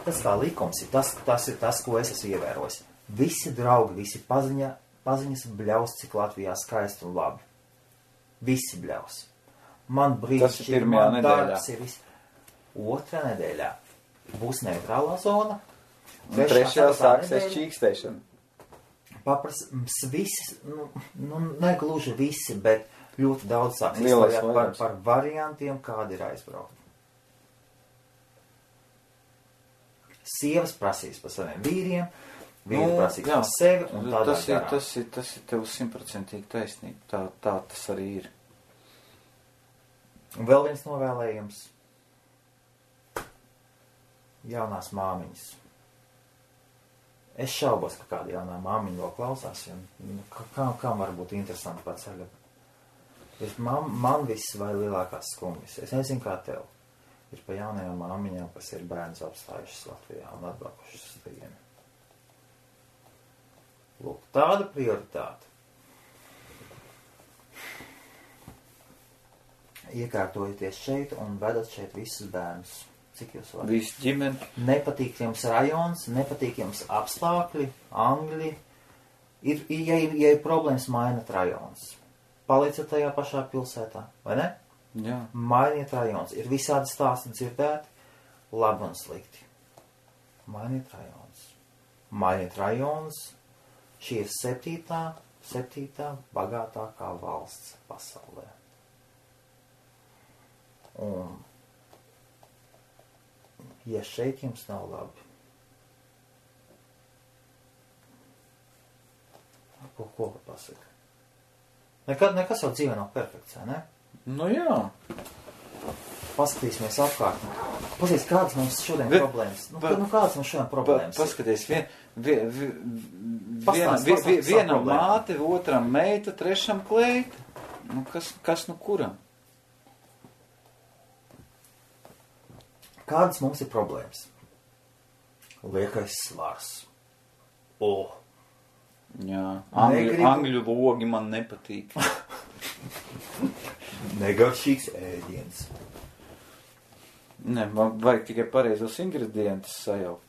tas kā likums ir, tas ir tas, ko es esmu ievērojis. Visi draugi, visi paziņas bļaus, cik Latvijā skaisti un labi. Visi bļaus. Man brīnišķīgi, man darbs ir viss. 2. nedēļā būs neitrālā zona. 3. sāksies čīkstēšana. Visi, negluži visi, bet ļoti daudz sāks izstāvēt par variantiem, kādi ir aizbraukt. Sievas prasīs par saviem vīriem, vīri prasīs par sevi un tādā garā. Tas ir tev 100% taisnība. Tā tas arī ir. Un vēl viens novēlējums. Jaunās māmiņas. Es šaubos, ka kāda jaunā māmiņa vēl klausās, kam var būt interesanti pa ceļu. Man viss vai lielākās skumjas. Es nezinu, kā tev. Ir pa jaunajām māmiņām, kas ir bērns apstājušas Latvijā un atbraukušas uz vienu. Lūk, tāda prioritāte. Iekārtojieties šeit un vedat šeit visus bērnus. Cik jūs varat? Visu ģimeni. Nepatīk jums rajons, nepatīk jums apstākļi, angļi. Ja ir problēmas, mainat rajons. Palieciet tajā pašā pilsētā, vai ne? Jā. Mainiet rajons. Ir visādi stāsti dzirdēti, labi un slikti. Mainiet rajons. Mainiet rajons. Šī ir 7. bagātākā valsts pasaulē. Un, ja šeit jums nav labi, ko var pasaka? Nekas jau dzīvē nav perfekts, vai ne? Nu jā. Paskatīsimies apkārt. Pasies, kādas mums šodien problēmas? Kādas mums šodien problēmas? Paskaties, vienam māte, otram meita, trešam kleita. Kas kuram? Kādas mums ir problēmas? Liekais svars. Jā, angļu logi man nepatīk. Negaršīgs ēdiens. Ne, man vajag tikai pareizos ingredientus sajaukt.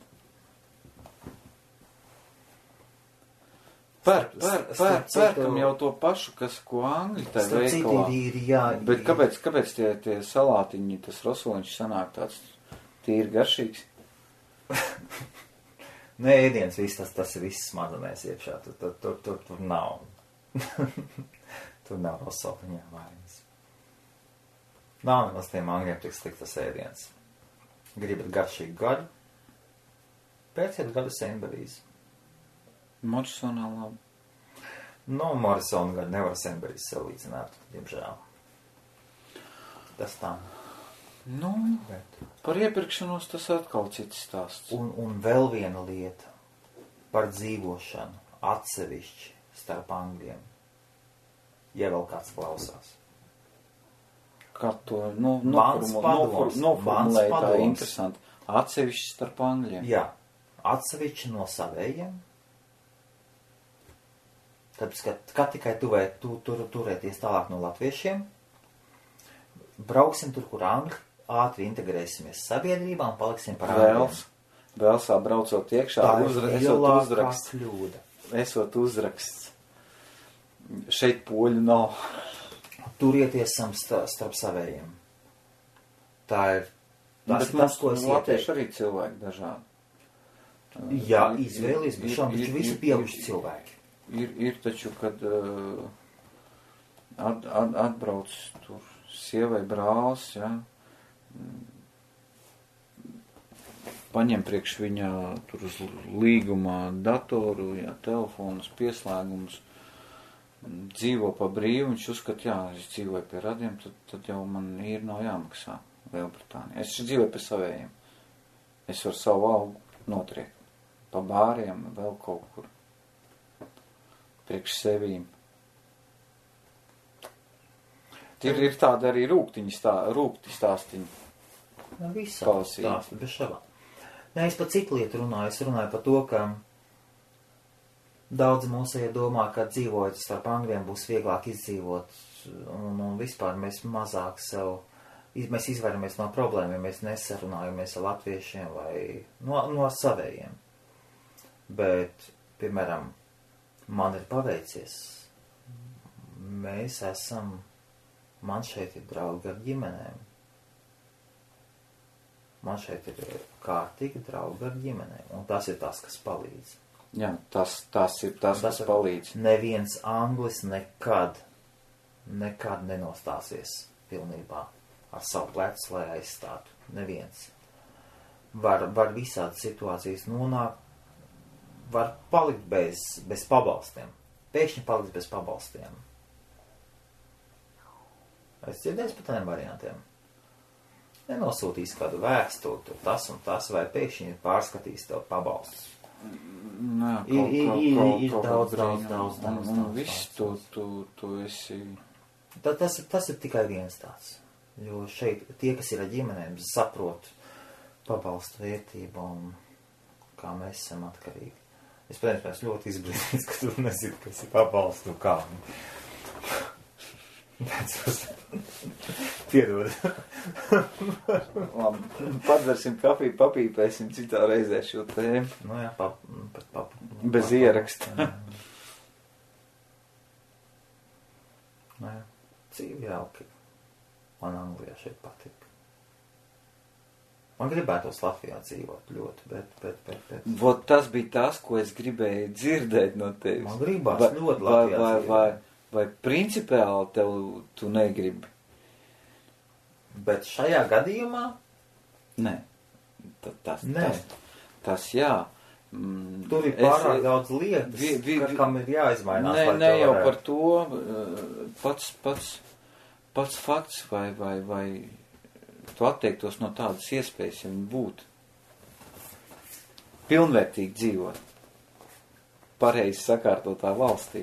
Pērkam jau to pašu, ko angļi tai veikalā. Bet kāpēc tie salātiņi, tas rosoliņš sanāk tāds tīri garšīgs? Nē, ēdiens viss, tas ir viss smadzenēs iekšā. Tur nav. Tur nav rosoliņā vainas. Nav nemaz tiem angļiem tik sliktas ēdiens. Gribat garšīgu gaļu? Pēciet gaļu Senberijas. Morisonā labi. Morisona gaļu nevar Senberijas salīdzināt, diemžēl. Tas tā. Par iepirkšanos tas atkal cits stāsts. Un vēl viena lieta par dzīvošanu atsevišķi starp angļiem. Ja vēl kāds klausās. Kā to noformulēt tā interesanti. Atsevišķi starp angļiem. Jā, atsevišķi no savējiem. Tāpēc, ka tikai turēties tālāk no latviešiem, brauksim tur, kur angļi, ātri integrēsimies sabiedrībā un paliksim par angļiem. Vēl sabraucot iekšā, esot uzraksts. Šeit poļu nav. Turieties starp savējiem. Tas, ko es ieteiktu. Latvieši arī cilvēki dažādi. Jā, izvēlies, bet šām taču visi pieauguši cilvēki. Ir taču, kad atbrauc tur sievai brālis, ja, paņem priekš viņā tur uz līgumā datoru, ja, telefonus, pieslēgumus, dzīvo pa brīvu, viņš uzskat, jā, es dzīvoju pie radiem, tad jau man ir nav jāmaksā Lielbritānijā. Es dzīvoju pie savējiem. Es varu savu algu notriekt. Pa bāriem, vēl kaut kur. Priekš sevīm. Ir tāda arī rūkti stāstiņi. Visā stāsti, bez šabā. Nē, es par citu lietu runāju. Es runāju par to, ka daudzi mūsēji domā, ka dzīvojot starp angļiem būs vieglāk izdzīvot. Un vispār mēs mazāk mēs izvairamies no problēmiem, mēs nesarunājamies ar latviešiem vai no savējiem. Bet, piemēram, man ir paveicies. Man šeit ir draugi ar ģimenēm. Man šeit ir kārtīgi draugi ar ģimenēm. Un tas ir tas, kas palīdz. Jā, tas ir tas, kas palīdz. Neviens anglis nekad nenostāsies pilnībā ar savu plecu, lai aizstātu. Neviens. Var visādi situācijas nonākt, var palikt bez pabalstiem. Pēkšņi palikt bez pabalstiem. Es dzirdēju par tādiem variantiem. Nenosūtīs kādu vēstuli, tas un tas, vai pēkšņi pārskatīs tev pabalstus. Ir daudz. Viss tu esi. Tas ir tikai viens tāds. Jo šeit tie, kas ir ar ģimenēm, saprot pabalstu vērtību un kā mēs esam atkarīgi. Es, protams, ļoti izbrīnīts, ka tu nezini, kas ir pabalstu kā. Piedod. Labi, padzersim kafiju, papīpēsim citā reizē šo tēmu. Jā, bez ieraksta. Jā, dzīvi jauki. Man Anglijā šeit patīk. Man gribētos Latvijā dzīvot ļoti, bet. Vot tas bija tas, ko es gribēju dzirdēt no tevis. Man gribās ļoti Latvijā dzīvot. Vai principiāli tu negribi? Bet šajā gadījumā? Nē. Tas jā. Tur ir pārāk daudz lietas, kam ir jāizmainās. Ne jau par to. Pats fakts vai tu atteiktos no tādas iespējas, ja viņi būtu pilnvērtīgi dzīvot pareizi sakārtotā valstī.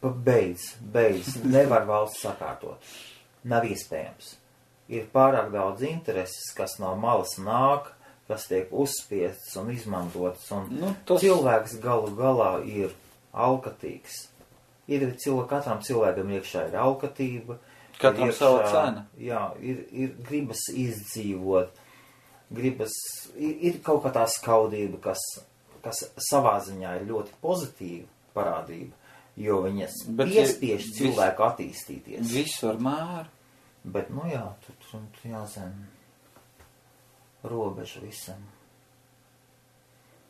Beidz. Nevar valsts sakārtot. Nav iespējams. Ir pārāk daudz intereses, kas no malas nāk, kas tiek uzspiests un izmantots, un cilvēks galu galā ir alkatīgs. Katram cilvēkam iekšā ir alkatība. Katram sava cena. Jā, ir gribas izdzīvot, ir kaut kā tā skaudība, kas savā ziņā ir ļoti pozitīva parādība, jo viņas piespiež cilvēku attīstīties. Visu ar mēru. Bet, tur jāzina robeža visam.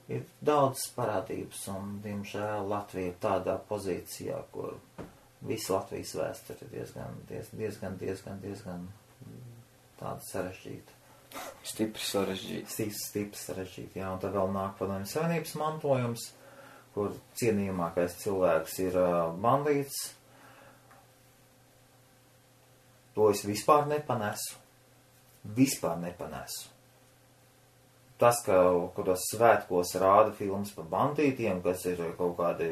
Ir daudz parādības, un, diemžēl, Latvija ir tādā pozīcijā, kur visa Latvijas vēsture ir diezgan tāda sarežģīta. Stipri sarežģīta, jā, un tad vēl nāk Padomju Savienības mantojums, kur cienījamākais cilvēks ir bandīts. To es vispār nepanesu. Tas, ka kuros svētkos rāda filmas par bandītiem, kas ir kaut kādi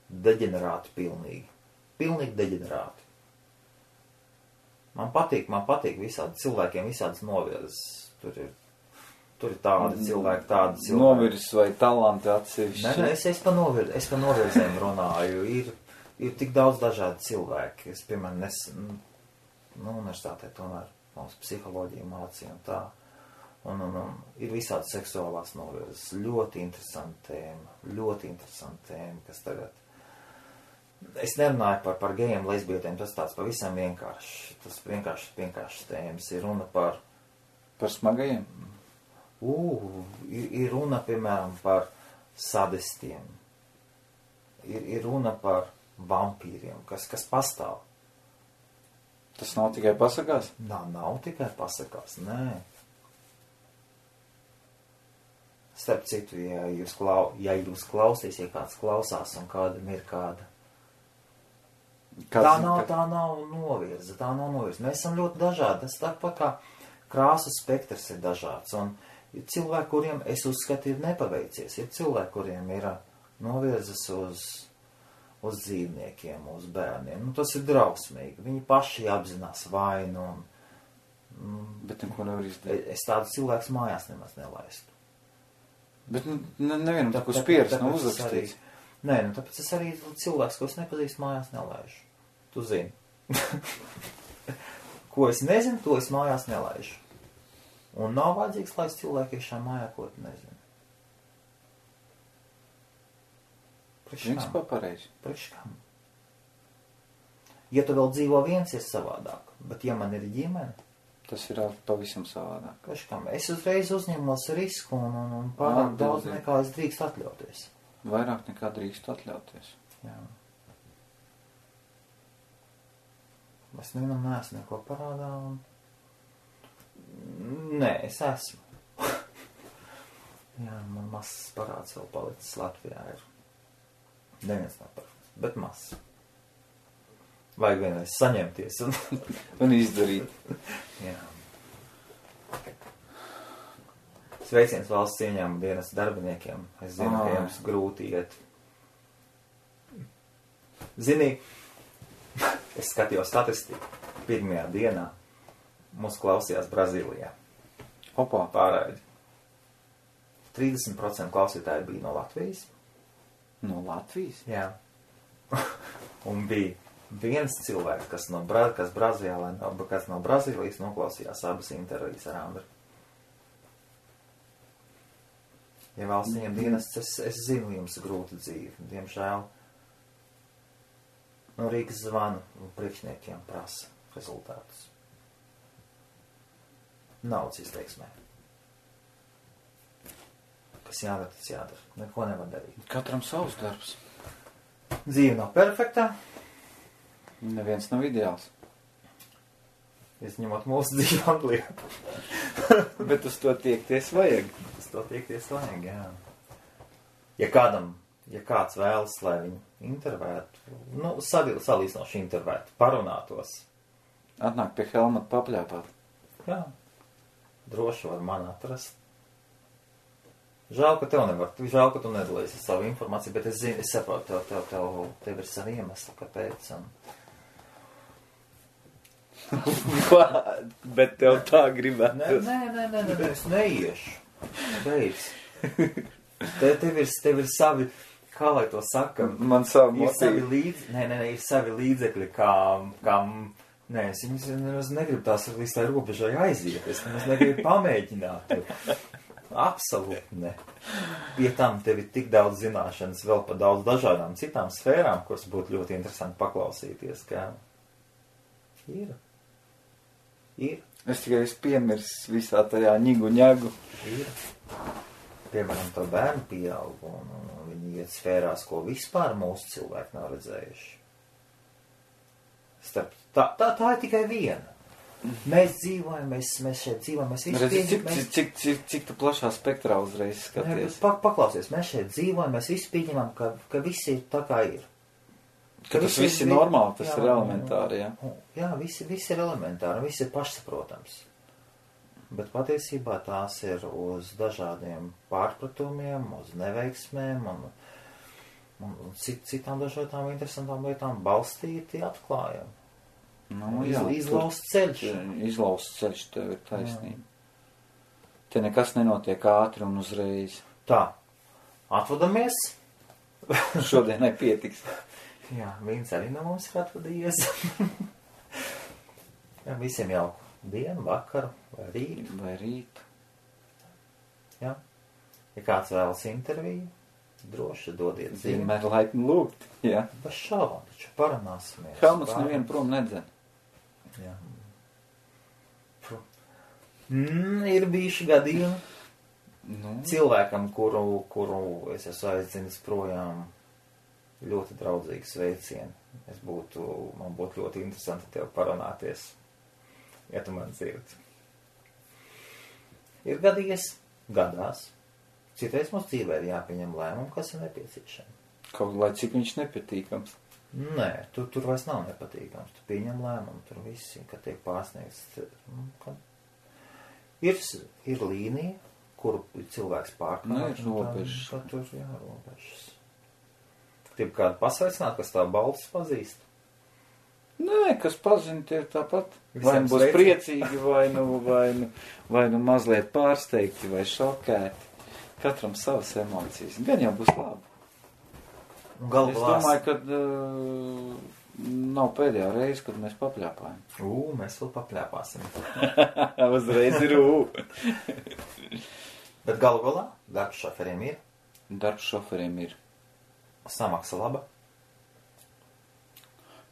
deģenerāti pilnīgi. Pilnīgi deģenerāti. Man patīk visādi cilvēkiem, visādas novirzes. Tur ir tādi cilvēki. Novirzes vai talanti atsevišķi? Nē, es pa novirzēm runāju. Ir tik daudz dažādi cilvēki. Es, piemēram, universitātē tomēr mums psiholoģija mācīja un tā. Un ir visādi seksuālās novirzes. Ļoti interesanti tēma, kas tagad... Es nerunāju par gejiem, lesbietiem, tas tāds pavisam vienkārši. Tas vienkārši tēmas. Ir runa par... Par smagajiem? Ir runa, piemēram, par sadistiem. Ir runa par vampīriem, kas pastāv. Tas nav tikai pasakās? Nav tikai pasakās, nē. Starp citu, ja jūs klausīs, ja kāds klausās un kādam ir kāda. Tā nav novirza. Mēs esam ļoti dažādi. Tas tāpat kā krāsu spektrs ir dažāds. Un ir cilvēki, kuriem es uzskatu ir nepaveicies. Ir cilvēki, kuriem ir novirzas uz dzīvniekiem, uz bērniem. Tas ir drausmīgi. Viņi paši apzinās vainu. Bet neko nevar izdarīt. Es tādu cilvēku mājās nemaz nelaistu. Bet nevienam tā, ko spieras nav uzrakstīts. Nē, tāpēc es arī cilvēks, ko es nepazīstu, mājās nelaižu. Tu zini. Ko es nezinu, to es mājās nelaižu. Un nav vajadzīgs, lai cilvēki iekšā mājā, ko tu nezini. Principā pareizi. Priekš kam? Ja tu vēl dzīvo viens, ir savādāk. Bet ja man ir ģimene, tas ir pavisam savādāk. Priekš kam? Es uzreiz uzņemos risku un pārāk daudz nekā es drīkst atļauties. Vairāk nekā drīkst atļauties. Jā. Es nevienam neesmu neko parādā un... Nē, es esmu. Jā, man mazs parāds vēl palicis Latvijā ir. Neviens nav perfekts, bet mazs. Vajag vienreiz saņemties un izdarīt. Jā. Sveiciens valsts ieņēmuma dienas darbiniekiem. Es zinu, ka jums grūti iet. Zini, es skatījos statistiku. Pirmajā dienā mūs klausījās Brazīlijā. Opā. Pārraidi. 30% klausītāji bija no Latvijas. No Latvijas? Jā. Un bija viens cilvēks, kas no Brazīlijas noklausījās abas intervijas ar Andru. Ja valsts ieņem dienests, es zinu, jums grūta dzīve. Diemžēl no Rīgas zvanu un priekšniekiem prasa rezultātus. Naudas izteiksmē. Kas jādara, tas jādara. Neko nevar darīt. Katram savs darbs. Dzīve nav perfektā. Neviens nav ideāls. Izņemot mūsu dzīvi Anglijā. Bet uz to tiekties vajag. Uz to tiekties vajag, jā. Ja kāds vēlas, lai viņu intervētu, salīdzinoši intervētu, parunātos, Atnāk pie Helmuta papļāpāt. Jā. Droši var man atrast. Žēl, ka tev nevar. Žēl, ka tu nedalīsi savu informāciju, bet es zinu, es saprotu, tev ir savi iemesli, kāpēc. Bet tev tā gribētu. Nē, es neiešu. Beidz. Tev ir savi, kā lai to saka? Man savu ir savi motīvi. ir savi līdzekļi, kam, nē, es viņus negribu tās līdz tā robežai aiziet. Es negribu pamēģināt. Absolūti ne. Pie tam tev ir tik daudz zināšanas vēl par daudz dažādām citām sfērām, kuras būtu ļoti interesanti paklausīties, kā ir. Es tikai piemirsu visā tajā ņigu. Ir. Piemēram, to bērnu pieaug, un viņi iet sfērās, ko vispār mūsu cilvēki nav redzējuši. Tā ir tikai viena. Mēs dzīvojam, mēs šeit dzīvojam, mēs visi pieņemam. Cik tu plašā spektrā uzreiz skaties? Paklausies, mēs šeit dzīvojam, mēs visi pieņemam, ka visi ir tā kā ir. Ka tas viss ir normāli, tas ir elementāri, jā? Jā, viss ir elementāri, viss ir pašsaprotams. Bet patiesībā tās ir uz dažādiem pārpratumiem, uz neveiksmēm un citām dažādām interesantām lietām balstīti atklājumi. Nu, jā, izlausts ceļš. Izlausts ceļš, tev ir taisnība. Te nekas nenotiek ātri un uzreiz. Tā, atvadamies. Šodienai pietiks. Jā, viens arī no mums ir atvadījies. Jā, visiem jauku dienu, vakaru vai rītu. Jā. Ja kāds vēlas interviju, droši dodiet ziņu. Vienmēr laipni lūgt, jā. Bez šaubām, taču parunāsimies. Helmuts nevienu prom nedzen. Jā. Ir bijuši gadījumi cilvēkam, kuru es esmu aizdzinis projām, ļoti draudzīgs sveicieni. Man būtu ļoti interesanti tev parunāties, ja tu man dzirdi. Ir gadās. Citreiz mums dzīvē ir jāpieņem lēmumu, kas ir nepieciešami. Kaut lai cik viņš nepatīkams. Nē, tur vairs nav nepatīkams. Tu pieņem lēmumu, tur visi, kad tiek pārsniegts. Ir līnija, kuru cilvēks pārkāp. Nē, ir robežas. Tur, jā, robežas. Gribu kādu pasveicināt, kas tā balsis pazīst? Nē, kas pazina, tie ir tāpat. Vai nu būs priecīgi, vai nu mazliet pārsteigti, vai šokēti. Katram savas emocijas. Gan jau būs labi. Es domāju, ka nav pēdējā reize, kad mēs papļāpājam. Mēs vēl papļāpāsim. Uzreiz ir Bet galu galā darbs šoferiem ir. Darbs šoferiem ir. Samaksa laba.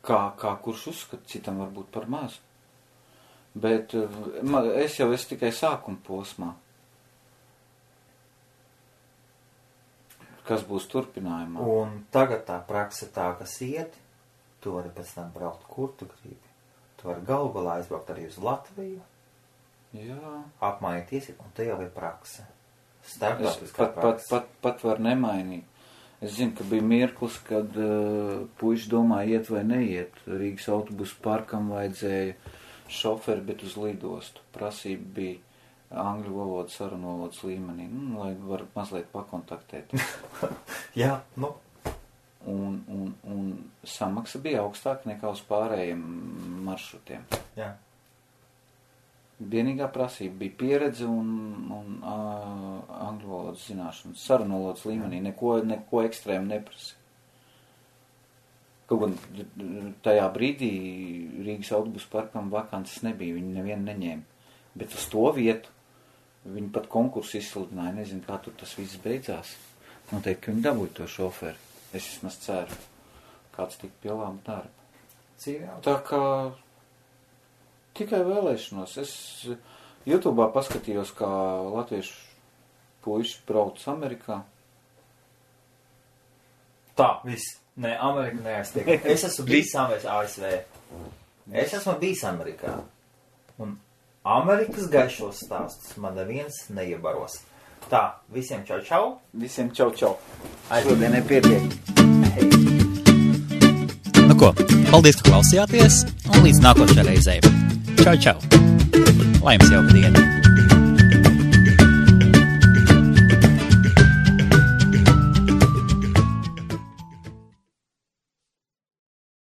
Kā kurš uzskata, citam varbūt par mazu. Bet es jau esmu tikai sākuma posmā. Kas būs turpinājumā? Un tagad tā praksa tā, kas iet, tu vari pēc tam braukt, kur tu gribi. Tu vari galu galā aizbraukt arī uz Latviju. Jā. Apmainīties, un te jau ir praksa. Starptautiskā praksa. Pat var nemainīt. Es zinu, ka bija mirklis, kad puiši domāja iet vai neiet. Rīgas autobusu parkam vajadzēja šoferi, bet uz lidostu. Prasība bija angļu valodas, sarunu valodas līmenī, lai var mazliet pakontaktēt. Jā, Un samaksa bija augstāka nekā uz pārējiem maršrutiem. Jā. Vienīgā prasība bija pieredze un angļu valodas zināšanas. Sarunu valodas līmenī neko ekstrēmu neprasa. Kaut gan tajā brīdī Rīgas autobusu parkam vakances nebija, viņi nevienu neņēma. Bet uz to vietu viņi pat konkursu izsludināja, nezinu, kā tur tas viss beidzās. Noteikti, ka viņi dabūja to šoferi. Es vismaz ceru, kāds tik pie laba darba. Tā kā tikai vēlēšanos. Es YouTube'ā paskatījos, kā latviešu puiši brauc Amerikā. Tā, viss. Nē, Amerika neaiztiek. Es esmu bijis ASV. Es esmu bijis Amerikā. Un Amerikas gaišos stāstus man neviens neiebaros. Tā, visiem čau čau. Visiem čau čau. Šodienai pietiek. Nu ko, Paldies, ka klausījāties, un līdz nākošajai reizei. Čau, čau! Lai jums jauka diena!